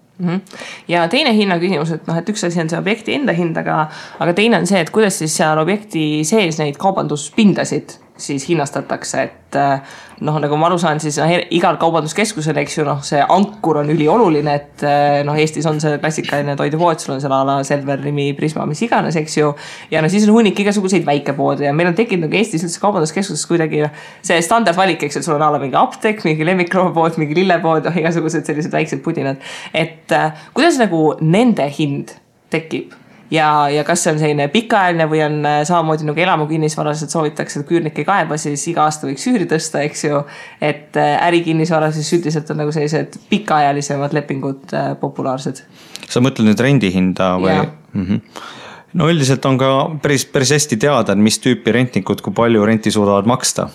Ja teine hinna küsimus, et üks asi on see objekti enda hind, aga teine on see, et kuidas siis seal objekti sees neid kaubanduspindasid siis hinnastatakse, et nagu ma aru saan, siis igal kaubanduskeskusel, eks ju, see ankur on ülioluline, et Eestis on see klassikaline toidupood, sul on seal ala Selver, Rimi, Prisma, mis iganes, eks ju, ja siis on hunnik igasuguseid väikepoode ja meil on tekkinud Eestis üldse kaubanduskeskuses kuidagi see standardvalik, eks, et sul on ala mingi apteek, mingi lemmikloomapood, mingi lillepood, igasugused sellised väiksed pudinad, et kuidas nagu nende hind tekib? Ja kas see on selline pikaajaline või on samamoodi nagu elamukinnisvaras, et soovitakse, et küürnik ei kaeba, siis iga aasta võiks üüri tõsta, eks ju, et ärikinnisvaras siis üldiselt on nagu sellised pikaajalisemad lepingud populaarsed. Sa mõtled nüüd rendihinda või? No üldiselt on ka päris hästi teada, mis tüüpi rentnikud, kui palju renti suudavad maksta.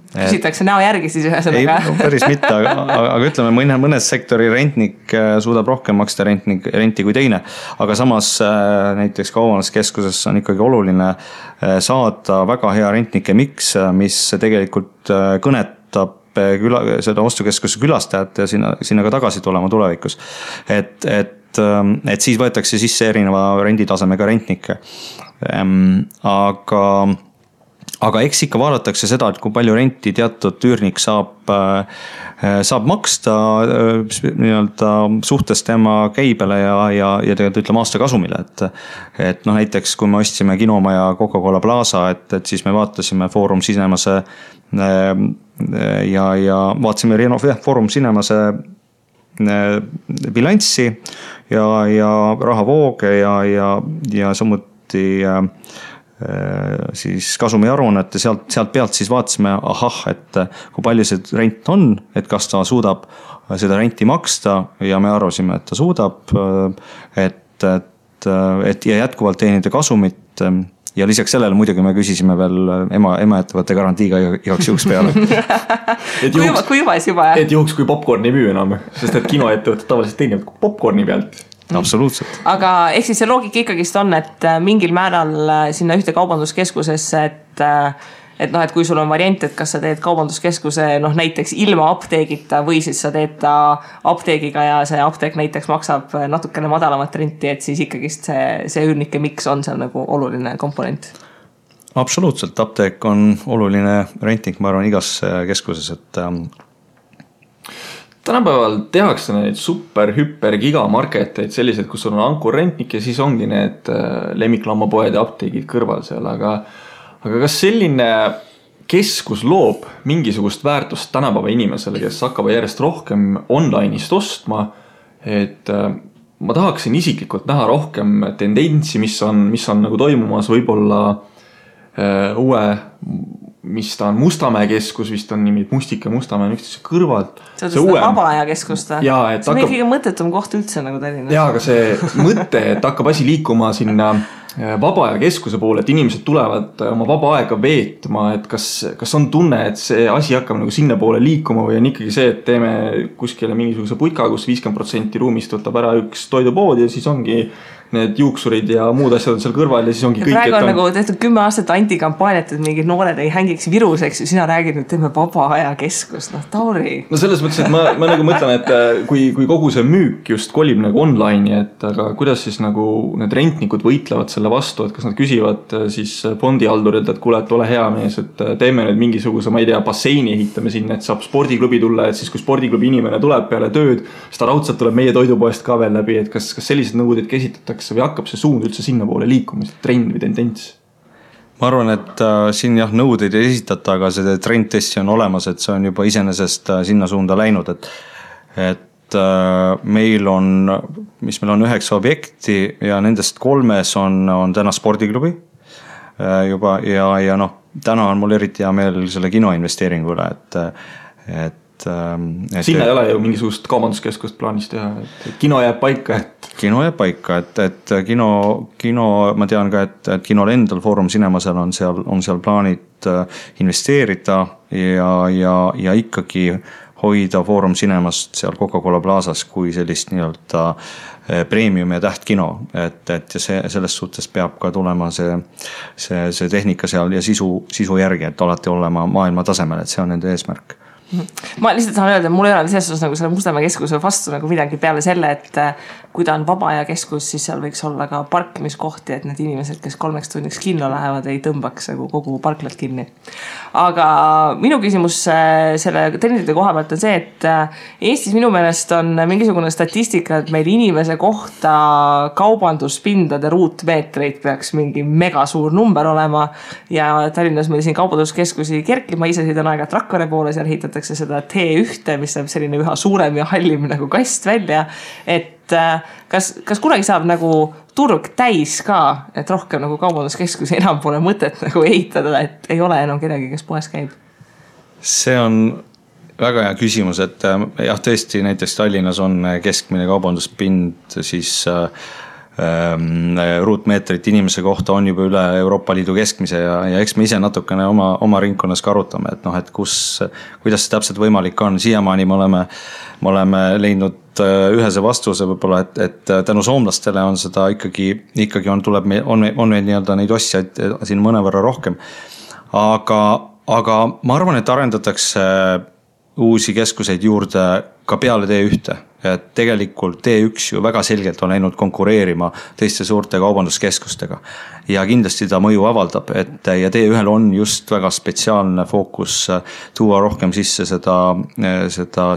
Küsitakse näo järgi siis ühesõnaga. Ei, päris mitte, aga ütleme, mõnes sektori rentnik suudab rohkem maksta renti kui teine. Aga samas näiteks kaubanduskeskuses on ikkagi oluline saada väga hea rentnike miks, mis tegelikult kõnetab seda ostukeskuse külastajat ja sinna ka tagasi tulema tulevikus. Et siis võetakse sisse erineva renditasemega rentnikke. Aga eks ikka vaadatakse seda, et kui palju renti teatud üürnik saab maksta nii-öelda suhtes tema käibele ja tegelikult ütleme aasta kasumile. Et näiteks kui me ostsime Kinomaja Coca-Cola Plaza, et siis me vaatasime Foorum Cinemase ja vaatasime Foorum Cinemase bilanssi ja rahavooge ja samuti siis kasumiaruannet ja sealt pealt siis vaatasime, et kui palju see rent on, et kas ta suudab seda renti maksta ja me arvasime, et ta suudab, et ja jätkuvalt teenida kasumit ja lisaks sellele muidugi me küsisime veel ema-ettevõtte garantiiga igaks juhuks peale. kui juba, siis juba, jah. Et juhuks, kui popcorn ei müü enam, sest et kinoettevõtted tavaliselt teenivad popcorni pealt. Absoluutselt. Aga ehk siis see loogika ikkagist on, et mingil määral sinna ühte kaubanduskeskusesse, et kui sul on variant, et kas sa teed kaubanduskeskuse näiteks ilma apteegita või siis sa teed ta apteegiga ja see apteek näiteks maksab natukene madalamat renti, et siis ikkagist see üürnike miks on seal nagu oluline komponent. Absoluutselt, apteek on oluline renting, ma arvan, igas keskuses, et tänapäeval tehakse neid super, hüper, gigamarketeid sellised, kus on ankurrentnik ja siis ongi need lemmiklammapoed ja apteegid kõrval seal, aga kas selline keskus loob mingisugust väärtust tänapäeva inimesele, kes hakkab järjest rohkem online'ist ostma, et ma tahaksin isiklikult näha rohkem tendentsi, mis on nagu toimumas võib-olla uue, mis ta on Mustamäe keskus, vist on nimid Mustika ja Mustamäe üksteise kõrvalt. See on seda vaba aja keskust. See on kõige mõttetum koht üldse nagu Tallinnas. Jaa, aga see mõte, et hakkab asi liikuma sinna vaba aja keskuse poole, et inimesed tulevad oma vaba aega veetma, et kas on tunne, et see asi hakkab nagu sinna poole liikuma või on ikkagi see, et teeme kuskile mingisuguse putka, kus 50% ruumist võtab ära üks toidupood ja siis ongi need juuksurid ja muud asjad on seal kõrval ja siis ongi kõik. Praegu on nagu tehtud 10 aastat antikampaaniat, et mingid noored ei hängiks viruseks ja sina räägid, et teeme vaba aja keskust. Tauri. No selles mõttes, et ma nagu mõtlen, et kui kogu see müük just kolib nagu online'i, et aga kuidas siis nagu need rentnikud võitlevad selle vastu, et kas nad küsivad siis fondihaldurilt, et kuule, et ole hea mees, et teeme nüüd mingisuguse, ma ei tea, basseini ehitame sinna, et saab spordiklubi tulla, et siis kui spordiklubi inimene tuleb peale tööd, siis ta raudselt tuleb meie toidupoest ka veel läbi, et kas sellised nõuded käsitatakse või hakkab see suund üldse sinna poole liikuma, trend või tendents? Ma arvan, et siin nõudeid ei esitata, aga see trend tõesti on olemas, et see on juba iseenesest sinna suunda läinud, et meil on 9 objekti ja nendest 3 on täna spordiklubi juba ja täna on mul eriti hea meel selle kino investeeringu üle, et sinna ei ole ju mingisugust kaubanduskeskust plaanis teha, et kino jääb paika, Kino jääb paika, et kino, ma tean ka, et kinol endal Foorum Cinemasel on seal plaanid investeerida ja ikkagi hoida Foorum Cinemast seal Coca-Cola Plazas kui sellist nii-öelda premium ja tähtkino, et ja selles suhtes peab ka tulema see tehnika seal ja sisu järgi, et alati olema maailma tasemel, et see on nende eesmärk. Ma lihtsalt tahan öelda, et mul ei ole selles osas nagu selle Mustamäe keskuse vastu nagu midagi peale selle, et kui ta on vaba aja keskus, siis seal võiks olla ka parkimiskohti, et need inimesed, kes 3 tunniks kinno lähevad, ei tõmbaks nagu kogu parklat kinni. Aga minu küsimus selle trendide koha pealt on see, et Eestis minu meelest on mingisugune statistika, et meil inimese kohta kaubanduspindade ruutmeetreid peaks mingi mega suur number olema ja Tallinnas meil siin kaubanduskeskusi kerkib, ma ise sõidan aega Rakvere poole, seal ehitatakse seda T1, mis on selline üha suurem ja hallim nagu kast välja, et kas kunagi saab nagu turg täis ka, et rohkem nagu kaubanduskeskusi enam pole mõtet nagu ehitada, et ei ole enam kedagi, kes poes käib? See on väga hea küsimus, et jah, tõesti näiteks Tallinnas on keskmine kaubanduspind siis ruutmeetrit inimese kohta on juba üle Euroopa Liidu keskmise ja eks me ise natukene oma ringkonnas ka arutame, et kuidas see täpselt võimalik on. Siiamaani me oleme leidnud ühese vastuse võib-olla, et tänu soomlastele on seda ikkagi on meil nii-öelda neid ostjaid siin mõnevõrra rohkem. Aga ma arvan, et arendatakse uusi keskuseid juurde ka peale T1. Et tegelikult T1 ju väga selgelt on läinud konkureerima teiste suurte kaubanduskeskustega ja kindlasti ta mõju avaldab, ja T1 on just väga spetsiaalne fookus tuua rohkem sisse seda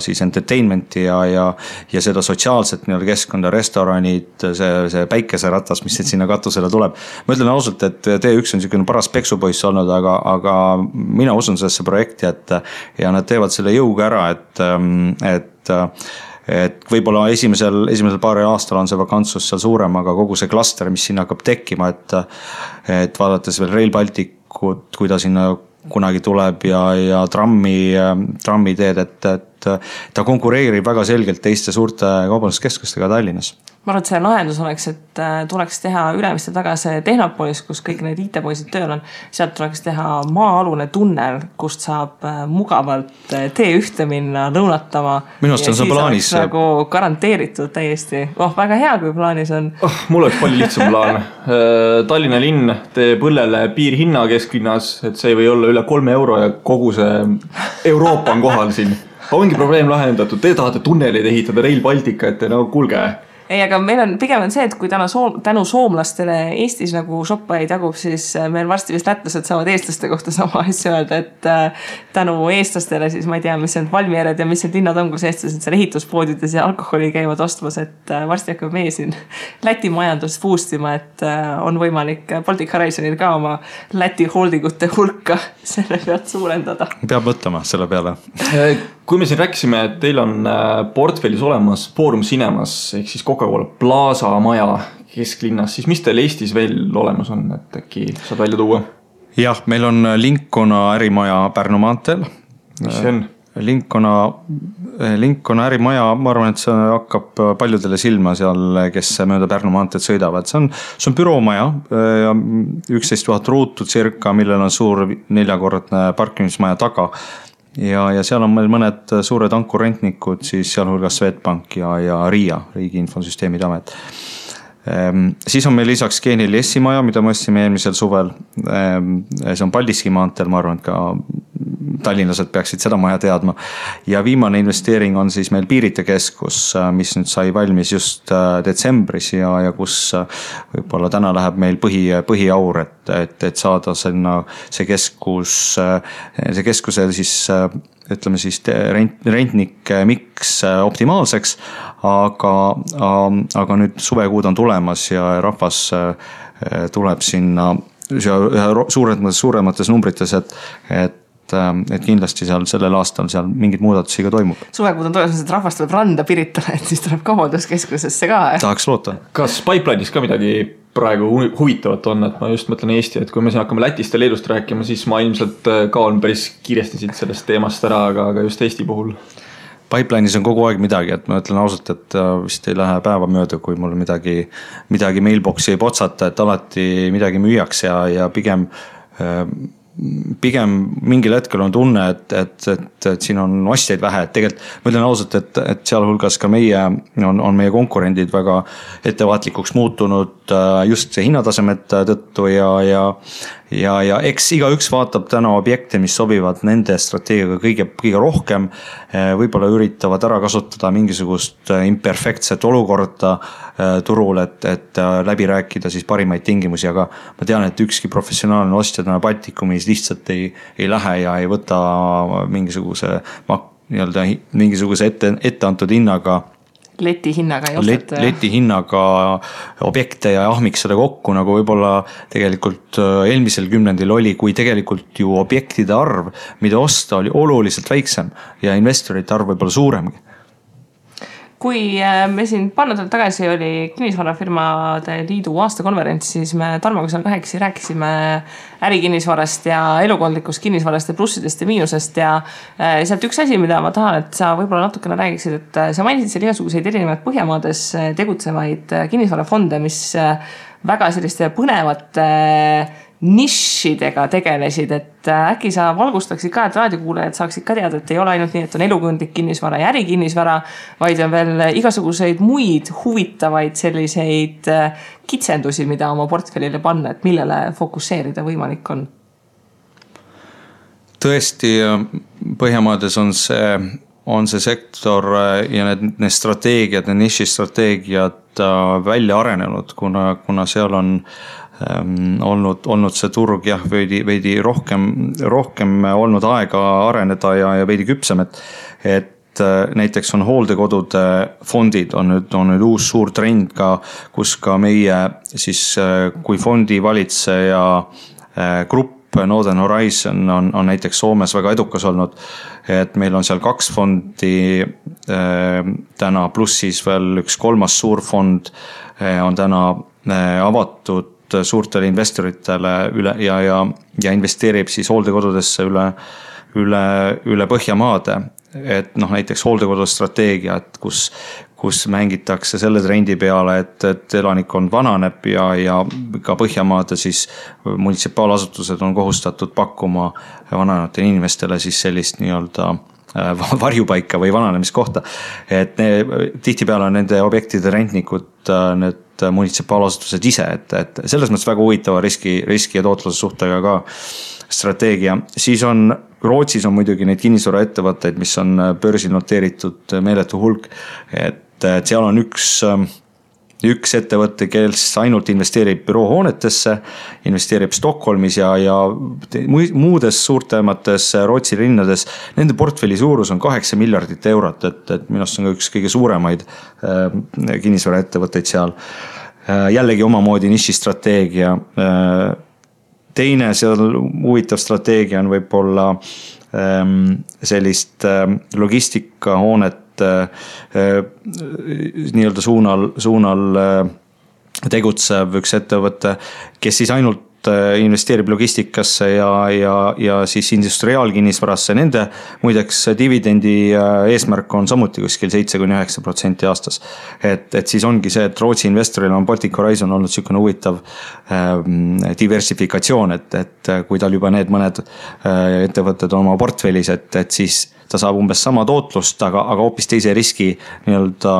siis entertainmenti ja seda sotsiaalset keskkonda, restoranid, see päikeseratas, mis sinna katusele tuleb. Ma ütlen ausalt, et T1 on niisugune paras peksupoiss olnud, aga mina usun sellesse projekti, ja nad teevad selle jõuga ära, et võib-olla esimesel paari aastal on see vakantsus seal suurem, aga kogu see klaster, mis sinna hakkab tekkima, et vaadates veel Rail Balticut, kui ta sinna kunagi tuleb ja trammiteed, et et ta konkureerib väga selgelt teiste suurte kaubanduskeskustega Tallinnas. Ma arvan, et see lahendus oleks, et tuleks teha Ülemiste taga see Tehnopolis, kus kõik need IT-poisid tööl on. Sealt tuleks teha maa-alune tunnel, kust saab mugavalt T1 minna lõunatama. Minu arust on see plaanis. Nagu garanteeritud täiesti. Väga hea, kui plaanis on. Mul oleks palju lihtsam plaan. Tallinna linn teeb õllele piirhinna kesklinnas, et see ei või olla üle 3 euro ja kogu see Euroopa on kohal siin. Ongi probleem lahendatud. Te tahate tunneleid ehitada Rail Baltica, et kuulge. Ei, aga meil on pigem see, et kui tänu soomlastele Eestis nagu shoppaid jagub, siis meil varsti vist lätlased saavad eestlaste kohta sama asja öelda, et tänu eestlastele siis ma ei tea, mis on valmiered ja mis need linnad on, kus eestlased seal ehituspoodides ja alkoholi käivad ostmas, et varsti hakkab meie siin Läti majandust boostima, et on võimalik Baltic Horizonil ka oma Läti holdingute hulka selle pealt suurendada. Peab mõtlema selle peale. Kui me siin rääkisime, et teil on portfellis olemas Forum Cinemas ehk siis Coca-Cola Plaza maja kesklinnas, siis mis teil Eestis veel olemas on, et äkki saad välja tuua? Jah, meil on Lincolna ärimaja Pärnu maanteel. Mis see on? Lincolna ärimaja, ma arvan, et see hakkab paljudele silma seal, kes mööda Pärnu maanteed sõidavad. See on büroomaja ja 11 000 ruutu circa, millel on suur 4-kordne parkimismaja taga. Ja seal on meil mõned suured ankurrentnikud, siis sealhulgas Swedbank ja RIA, Riigi Infosüsteemide Amet. Siis on meil lisaks G4S maja, mida me ostsime eelmisel suvel. See on Paldiski maanteel, ma arvan, et ka tallinlased peaksid seda maja teadma. Ja viimane investeering on siis meil Piirite keskus, mis nüüd sai valmis just detsembris ja kus võib-olla täna läheb meil põhiaur, et saada see keskuse siis ütleme siis rentnik miks optimaalseks, aga nüüd suvekuud on tulemas ja rahvas tuleb sinna suuremates numbrites, et kindlasti seal sellel aastal seal mingid muudatusi ka toimub. Suvekuud on tulemas, et rahvas tuleb randa Piritale, et siis tuleb kaubanduskeskusesse ka. Tahaks loota. Kas pipeline'is ka midagi praegu huvitavat on, et ma just mõtlen Eesti, et kui me siin hakkame Lätist ja Leedust rääkima, siis ma ilmselt kaon päris kiiresti siit sellest teemast ära, aga just Eesti puhul. Pipeline'is on kogu aeg midagi, et ma ütlen ausalt, et vist ei lähe päeva mööda, kui mul midagi mailboxi ei potsata, et alati midagi müüaks ja pigem mingil hetkel on tunne, et siin on ostjaid vähe, et tegelikult ma ütlen ausalt, et sealhulgas ka on meie konkurendid väga ettevaatlikuks muutunud just see hinnatasemete tõttu ja eks igaüks vaatab täna objekte, mis sobivad nende strateegiaga kõige rohkem, võib-olla üritavad ära kasutada mingisugust imperfektset olukorda turul, et läbi rääkida siis parimaid tingimusi, aga ma tean, et ükski professionaalne ostja täna Baltikumis lihtsalt ei lähe ja ei võta mingisuguse ette antud hinnaga leti hinnaga ei ostata. Leti hinnaga objekte ja ahmiks seda kokku, nagu võib-olla tegelikult eelmisel kümnendil oli, kui tegelikult ju objektide arv, mida osta, oli oluliselt väiksem ja investorite arv võib-olla suuremgi. Kui me siin paar nädalat tagasi oli kinnisvarafirmade liidu aastakonverents, siis me Tarmoga seal kahekesi rääkisime ärikinnisvarast ja elukondlikust kinnisvarast ja plussidest ja miinusest ja sealt üks asi, mida ma tahan, et sa võib-olla natukene räägiksid, et sa mainisid seal igasuguseid erinevaid Põhjamaades tegutsevaid kinnisvarafonde, mis väga selliste põnevate nišidega tegelesid, et äkki sa valgustaksid ka, et raadiokuulajad saaksid ka teada, et ei ole ainult nii, et on elukondlik kinnisvara ja ärikinnisvara, vaid on veel igasuguseid muid huvitavaid selliseid kitsendusi, mida oma portfellile panna, et millele fokusseerida võimalik on? Tõesti, Põhjamaades on see sektor ja need strateegiad, need nišistrateegiad välja arenenud, kuna seal on olnud see turg veidi rohkem olnud aega areneda ja veidi küpsem, et näiteks on hooldekodude fondid on nüüd uus suur trend ka, kus ka meie siis kui fondi valitseja grupp Northern Horizon on näiteks Soomes väga edukas olnud, et meil on seal 2 fondi täna, pluss siis veel üks 3. suur fond on täna avatud suurtele investoritele ja investeerib siis hooldekodudesse üle Põhjamaade. et noh, näiteks hooldekodustrateegia, et kus mängitakse selle trendi peale, et elanikkond vananeb ja ka Põhjamaade siis munitsipaalasutused on kohustatud pakkuma vananevatele inimestele siis sellist nii-öelda varjupaika või vananemiskohta. Et tihtipeale on nende objektide rentnikud need munitsipaalasutused ise, et selles mõttes väga huvitava riski ja tootluse suhtega ka strateegia. Siis on Rootsis on muidugi neid kinnisvaraettevõtteid, mis on börsil noteeritud meeletu hulk, et seal on üks ettevõte, kes ainult investeerib büroohoonetesse, investeerib Stockholmis ja muudes suurtemates Rootsi linnades. Nende portfelli suurus on 8 miljardit eurot, et minust on ka üks kõige suuremaid kinnisvaraettevõtteid seal. Jällegi omamoodi nišistrateegia. Teine seal huvitav strateegia on võib-olla sellist logistikahoonet nii-öelda suunal tegutsev üks ettevõte, kes siis ainult investeerib logistikasse ja siis industriaalkinnisvarasse. Nende muideks dividendi eesmärk on samuti kuskil 7-9% aastas. Et siis ongi see, et Rootsi investoril on Baltic Horizon olnud selline huvitav diversifikatsioon, et kui tal juba need mõned ettevõtted on oma portfellis, et siis ta saab umbes sama tootlust, aga hoopis teise riski nii-öelda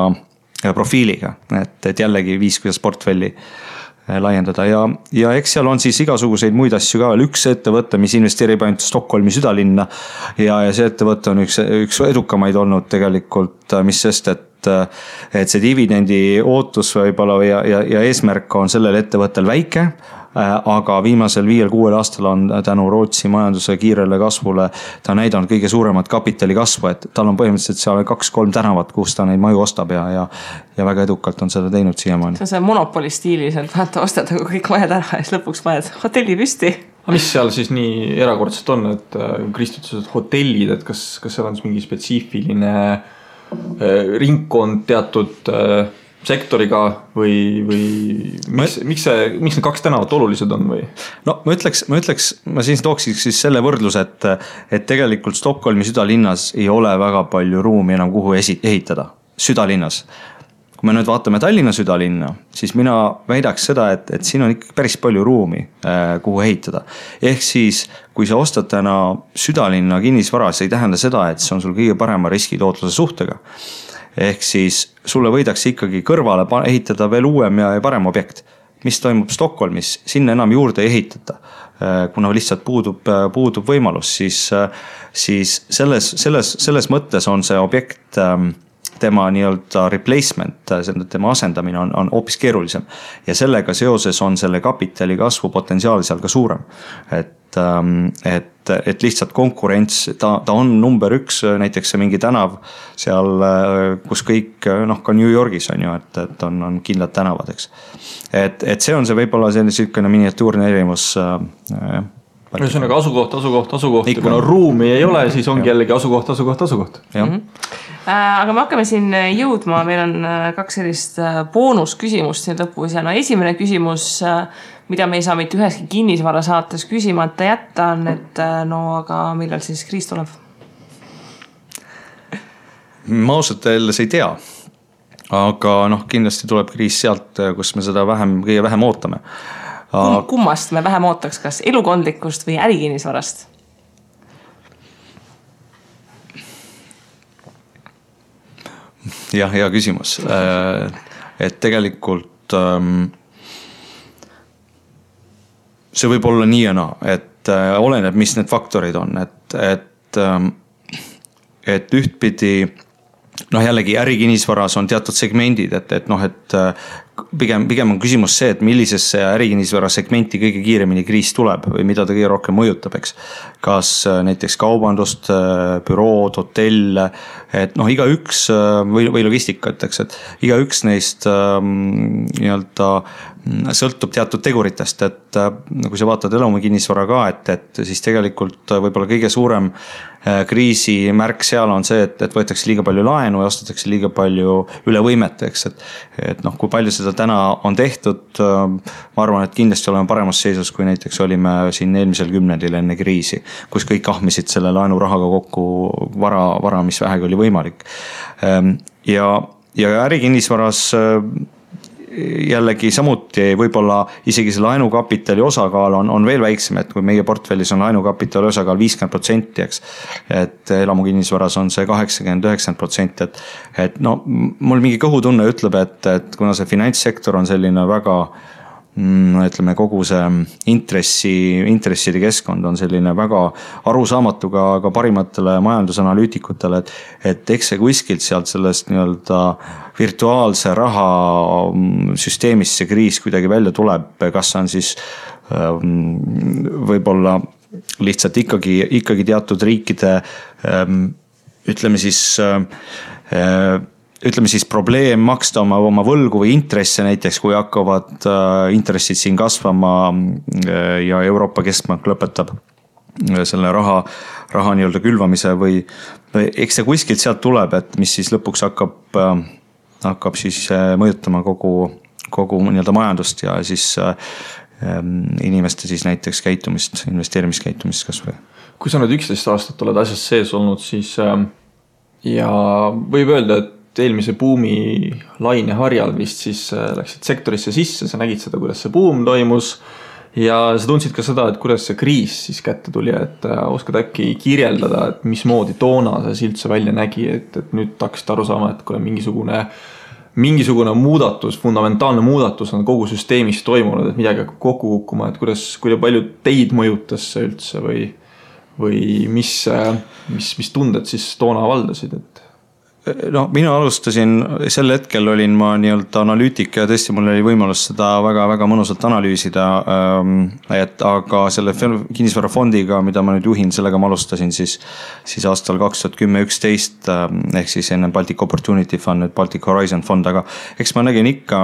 profiiliga. Et jällegi viis, kuidas portfelli laiendada ja eks seal on siis igasuguseid muid asju ka veel. Üks ettevõte, mis investeerib ainult Stockholmi südalinna ja see ettevõte on üks edukamaid olnud tegelikult, mis sest, et see dividendi ootus võib-olla ja eesmärk on sellel ettevõttel väike, aga viimasel 5-6 aastal on tänu Rootsi majanduse kiirele kasvule ta näidanud kõige suuremat kapitali kasvu, et tal on põhimõtteliselt seal 2-3 tänavat, kus ta neid maju ostab ja väga edukalt on seda teinud siiamaani. See on see monopoli stiilis, et vaata ostad kõik majad ära ja siis lõpuks majad hotelli püsti. Aga mis seal siis nii erakordselt on, et kristutsused hotellid, et kas seal on mingi spetsiifiline ringkond teatud sektoriga või miks need 2 tänavat olulised on või? No ma siis tooksiks siis selle võrdlus, et tegelikult Stockholmi südalinnas ei ole väga palju ruumi enam kuhu ehitada südalinnas. Kui me nüüd vaatame Tallinna südalinna, siis mina väidaks seda, et siin on ikka päris palju ruumi, kuhu ehitada. Ehk siis, kui sa ostad täna südalinna kinnisvara, see ei tähenda seda, et see on sul kõige parema riskitootluse suhtega. Ehk siis sulle võidakse ikkagi kõrvale ehitada veel uuem ja parem objekt. Mis toimub Stockholmis, sinna enam juurde ei ehitata, kuna lihtsalt puudub võimalus, siis selles mõttes on see objekt tema nii-öelda replacement, tema asendamine on hoopis keerulisem ja sellega seoses on selle kapitali kasvu potentsiaal seal ka suurem. Et lihtsalt konkurents, ta on number 1, näiteks see mingi tänav seal, kus kõik, ka New Yorgis on ju, et on kindlad tänavad, eks. Et see on see võib-olla selline miniatuurne erinevus. Ühesõnaga asukoht. Ja kuna ruumi ei ole, siis ongi jällegi asukoht. Aga me hakkame siin jõudma, meil on 2 sellist boonusküsimust siin lõpus ja esimene küsimus, mida me ei saa mitte üheski kinnisvara saates küsimata jätta on, et aga millal siis kriis tuleb? Ma ausalt öeldes ei tea, aga kindlasti tuleb kriis sealt, kus me seda kõige vähem ootame. Kummast me vähem ootaks, kas elukondlikust või ärikinnisvarast? Jah, hea küsimus. Et tegelikult see võib olla nii ja naa, et oleneb, mis need faktorid on, et ühtpidi jällegi ärikinnisvaras on teatud segmendid, et pigem on küsimus see, et millisesse ärikinnisvara segmenti kõige kiiremini kriis tuleb või mida ta kõige rohkem mõjutab, eks. Kas näiteks kaubandust, bürood, hotell, et igaüks või logistikat, eks, et igaüks neist nii-öelda sõltub teatud teguritest, et kui sa vaatad elukinnisvara ka, et siis tegelikult võib-olla kõige suurem kriisi märk seal on see, et võetakse liiga palju laenu ja ostetakse liiga palju üle võimet, eks, et kui palju seda seda täna on tehtud, ma arvan, et kindlasti oleme paremas seisus, kui näiteks olime siin eelmisel kümnendil enne kriisi, kus kõik ahmisid selle laenurahaga kokku vara, mis vähegi oli võimalik. Ja ärikinnisvaras jällegi samuti võib-olla isegi see laenukapitali osakaal on veel väiksem, et kui meie portfellis on laenukapitali osakaal 50%, eks, et elamukinnisvaras on see 80-90%, et no mul mingi kõhutunne ütleb, et kuna see finantssektor on selline väga, ütleme, kogu see intresside keskkond on selline väga arusaamatu ka parimatele majandusanalüütikutele, et eks see kuskilt sealt sellest nii-öelda virtuaalse raha süsteemist see kriis kuidagi välja tuleb, kas on siis võib-olla lihtsalt ikkagi teatud riikide ütleme siis probleem maksta oma võlgu või intresse näiteks, kui hakkavad intressid siin kasvama ja Euroopa Keskpank lõpetab selle raha nii-öelda külvamise või eks see kuskilt sealt tuleb, et mis siis lõpuks hakkab siis mõjutama kogu nii-öelda majandust ja siis inimeste siis näiteks käitumist, investeerimiskäitumist kas või. Kui sa nüüd 11 aastat oled asjas sees olnud, siis ja võib öelda, et eelmise buumi laine harjal vist siis läksid sektorisse sisse, sa nägid seda, kuidas see buum toimus ja sa tundsid ka seda, et kuidas see kriis siis kätte tuli, et oskad äkki kirjeldada, et mismoodi toona see üldse välja nägi, et nüüd hakkasid aru saama, et kui mingisugune muudatus, fundamentaalne muudatus on kogu süsteemis toimunud, et midagi hakkab kokku kukkuma, et kui palju teid mõjutas see üldse või mis tunded siis toona valdasid, et no mina alustasin, sel hetkel olin ma nii-öelda analüütik ja tõesti mul oli võimalus seda väga-väga mõnusalt analüüsida, aga selle kinnisvarafondiga, mida ma nüüd juhin, sellega ma alustasin siis aastal 2010-11 ehk siis enne Baltic Opportunity Fund, nüüd Baltic Horizon fond, aga eks ma nägin ikka,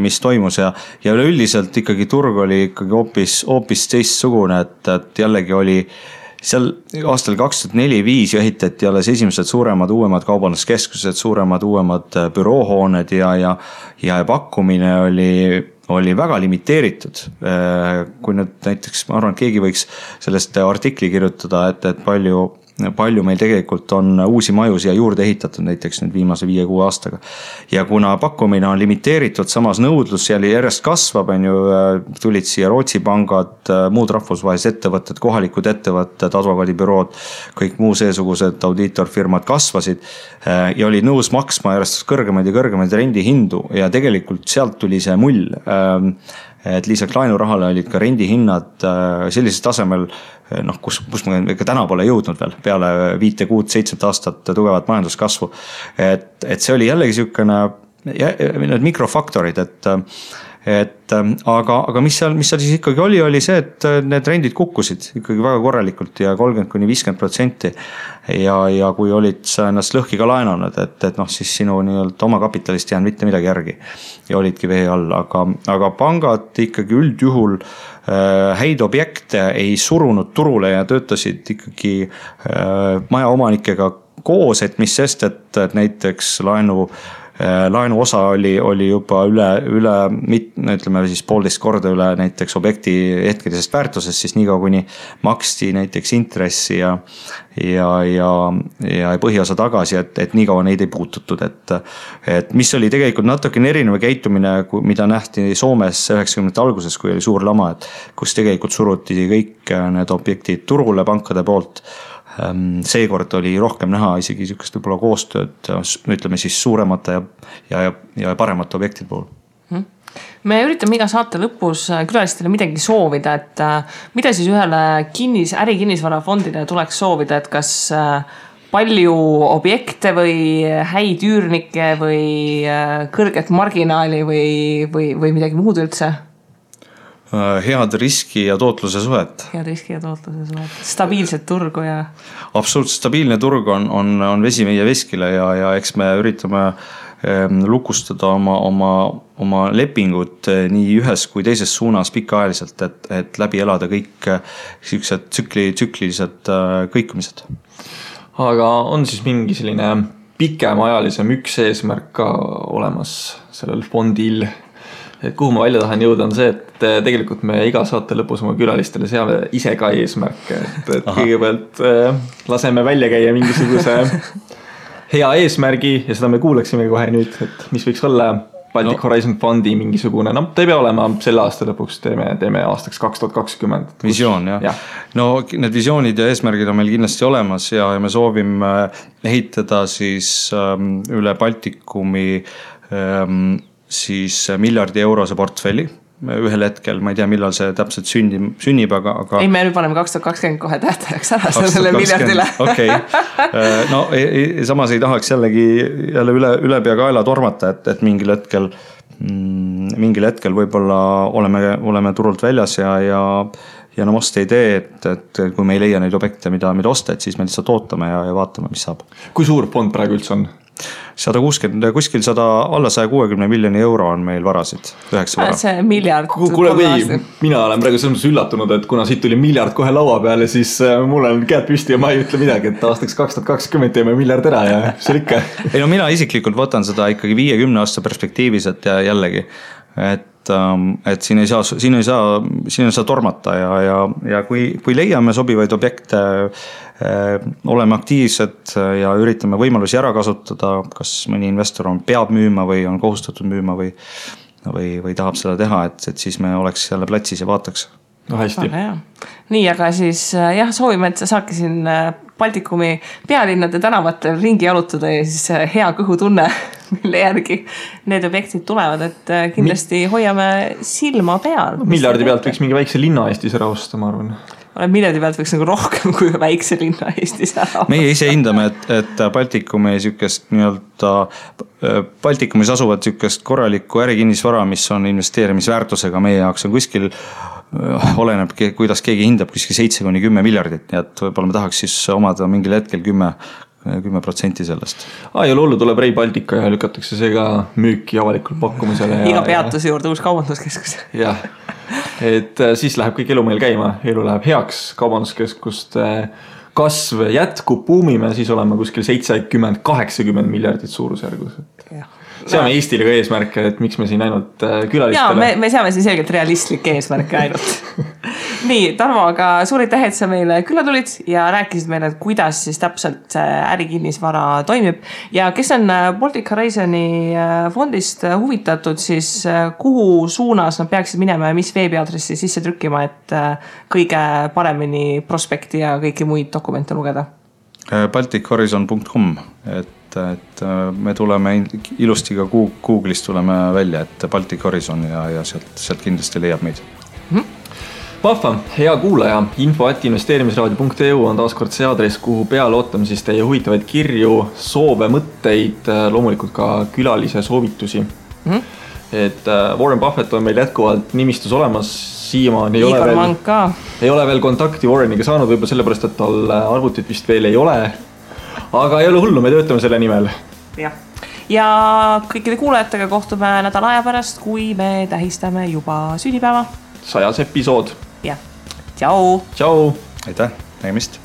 mis toimus ja üleüldiselt ikkagi turg oli ikkagi hoopis teistsugune, et jällegi oli seal aastal 2004-2005 ehitati alles esimesed suuremad uuemad kaubanduskeskused, suuremad uuemad büroohooned ja pakkumine oli väga limiteeritud. Kui nüüd näiteks, ma arvan, et keegi võiks sellest artikli kirjutada, et palju meil tegelikult on uusi maju siia juurde ehitatud näiteks nüüd viimase 5-6 aastaga. Ja kuna pakkumine on limiteeritud, samas nõudlus järjest kasvab, tulid siia Rootsi pangad, muud rahvusvahelised ettevõtted, kohalikud ettevõtted, advokaadibürood, kõik muu seesugused audiitorfirmad kasvasid ja olid nõus maksma järjest kõrgemaid ja kõrgemaid rendihindu ja tegelikult sealt tuli see mull. Et lisaks laenurahale olid ka rendihinnad sellisel tasemel, kus me ka täna pole jõudnud veel peale 5-6-7 aastat tugevat majanduskasvu. Et see oli jällegi niisugune mikrofaktorid, aga mis seal siis ikkagi oli see, et need rendid kukkusid ikkagi väga korralikult ja 30-50% ja kui olid sa ennast lõhki ka laenanud, et siis sinu nii-öelda oma kapitalist jäänud mitte midagi järgi ja olidki vee all, aga pangad ikkagi üldjuhul häid objekte ei surunud turule ja töötasid ikkagi majaomanikega koos, et mis sest, et näiteks laenu osa oli juba üle ütleme siis 1,5 korda üle näiteks objekti hetkelisest väärtusest, siis nii kaua kuni maksti näiteks intressi ja põhiosa tagasi, et nii kaua neid ei puututud, et mis oli tegelikult natukene erinev käitumine, mida nähti Soomes 90. alguses, kui oli suur lama, et kus tegelikult suruti kõik need objektid turule pankade poolt. Seekord oli rohkem näha isegi niisugust võib-olla koostööd, ütleme siis suuremate ja paremate objektide puhul. Me üritame iga saate lõpus külalistele midagi soovida, et mida siis ühele ärikinnisvarafondile tuleks soovida, et kas palju objekte või häid üürnikke või kõrget marginaali või midagi muud üldse? Head riski ja tootluse suhet. Stabiilset turgu ja... Absoluutselt stabiilne turg on vesi meie veskile ja eks me üritame lukustada oma lepingut nii ühes kui teises suunas pikaajaliselt, et läbi elada kõik sellised tsüklilised kõikumised. Aga on siis mingi selline pikemaajalisem üks eesmärk ka olemas sellel fondil? et kuhu ma välja tahan jõuda on see, et tegelikult me iga saate lõpus oma külalistele seame ise ka eesmärke, et kõigepealt laseme välja käia mingisuguse hea eesmärgi ja seda me kuulaksime kohe nüüd, et mis võiks olla Baltic Horizon Fondi mingisugune, no ta ei pea olema selle aasta lõpuks, teeme aastaks 2020. Visioon, jah. No need visioonid ja eesmärgid on meil kindlasti olemas ja me soovime ehitada siis üle Baltikumi siis miljardi eurose portfelli. Ühel hetkel, ma ei tea, millal see täpselt sünnib, aga... Ei, me nüüd paneme 2020 kohe tähtajaks ära sellele miljardile. Okei. No samas ei tahaks jällegi üle pea kaela tormata, et mingil hetkel võib-olla oleme turult väljas ja no osta idee, et kui me ei leia neid objekte, mida osta, et siis me lihtsalt ootame ja vaatame, mis saab. Kui suur fond praegu üldse on? 160, kuskil alla 160 miljoni euro on meil varasid, 9 vara. See miljard. Kuule, mina olen praegu selles üllatunud, et kuna siit tuli miljard kohe laua peale, siis mul on käed püsti ja ma ei ütle midagi, et aastaks 2020 teeme miljard ära ja see ikka. Ei no mina isiklikult võtan seda ikkagi 50 aasta perspektiivis, et jällegi, et siin ei saa tormata ja kui leiame sobivaid objekte, oleme aktiivsed ja üritame võimalusi ära kasutada, kas mõni investor peab müüma või on kohustatud müüma või tahab seda teha, et siis me oleks jälle platsis ja vaataks. No hästi. Nii, aga siis soovime, et sa saadki siin Baltikumi pealinnade tänavatel ringi jalutada ja siis hea kõhutunne, mille järgi need objektid tulevad, et kindlasti hoiame silma peal. Miljardi pealt võiks mingi väikse linna Eestis ära osta, ma arvan. Miljardi pealt võiks nagu rohkem kui väikse linna Eestis ära. Meie ise hindame, et Baltikumi sükest Baltikumis asuvad sükest korralikku ärikinnisvara, mis on investeerimisväärtusega meie jaoks on kuskil oleneb, kuidas keegi hindab kuskil 7-10 miljardit, nii et võib-olla me tahaks siis omada mingil hetkel 10% sellest. Ja lollu tuleb Rail Baltica ja lükatakse see ka müüki avalikul pakkumisele. Iga peatuse juurde uus kaubanduskeskus. Jah, et siis läheb kõik elu meil käima, elu läheb heaks, kaubanduskeskuste kasv jätkub, buumime, siis oleme kuskil 70-80 miljardit suurusjärgus. Seame Eestile ka eesmärke, et miks me siin ainult külalistele. Ja me seame siin selgelt realistlik eesmärke ainult. Nii, Tarmo, aga suur aitäh, et sa meile külla tulid ja rääkisid meile, et kuidas siis täpselt ärikinnisvara toimib. Ja kes on Baltic Horizoni fondist huvitatud, siis kuhu suunas nad peaksid minema ja mis veebiadressi sisse trükkima, et kõige paremini prospekti ja kõiki muid dokumente lugeda? baltichorizon.com, et me tuleme ilusti ka Google'ist tuleme välja, et Baltic Horizon ja sealt kindlasti leiab meid. Vahva, hea kuulaja, info@investeerimisraadio.eu on taaskord see aadress, kuhu peale ootame siis teie huvitavaid kirju, soove, mõtteid, loomulikult ka külalise soovitusi. Et Warren Buffett on meil jätkuvalt nimistus olemas, siiamaani ei ole veel kontakti Warreniga saanud, võib-olla sellepärast, et tal arvutit vist veel ei ole, aga ei ole hullu, me töötame selle nimel. Ja kõikide kuulajatega kohtume nädala aja pärast, kui me tähistame juba sünnipäeva. 100. episood. Jah, tšau! Tšau! Aitäh, nägemist!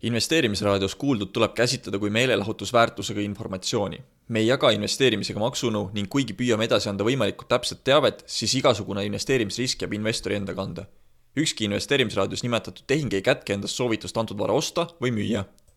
Investeerimisraadios kuuldud tuleb käsitleda kui meelelahutusväärtusega informatsiooni. Me ei jaga investeerimisega maksunõu ning kuigi püüame edasi anda võimalikult täpset teavet, siis igasugune investeerimisrisk jääb investori enda kanda. Ükski investeerimisraadios nimetatud tehing ei kätke endast soovitust antud vara osta või müüa.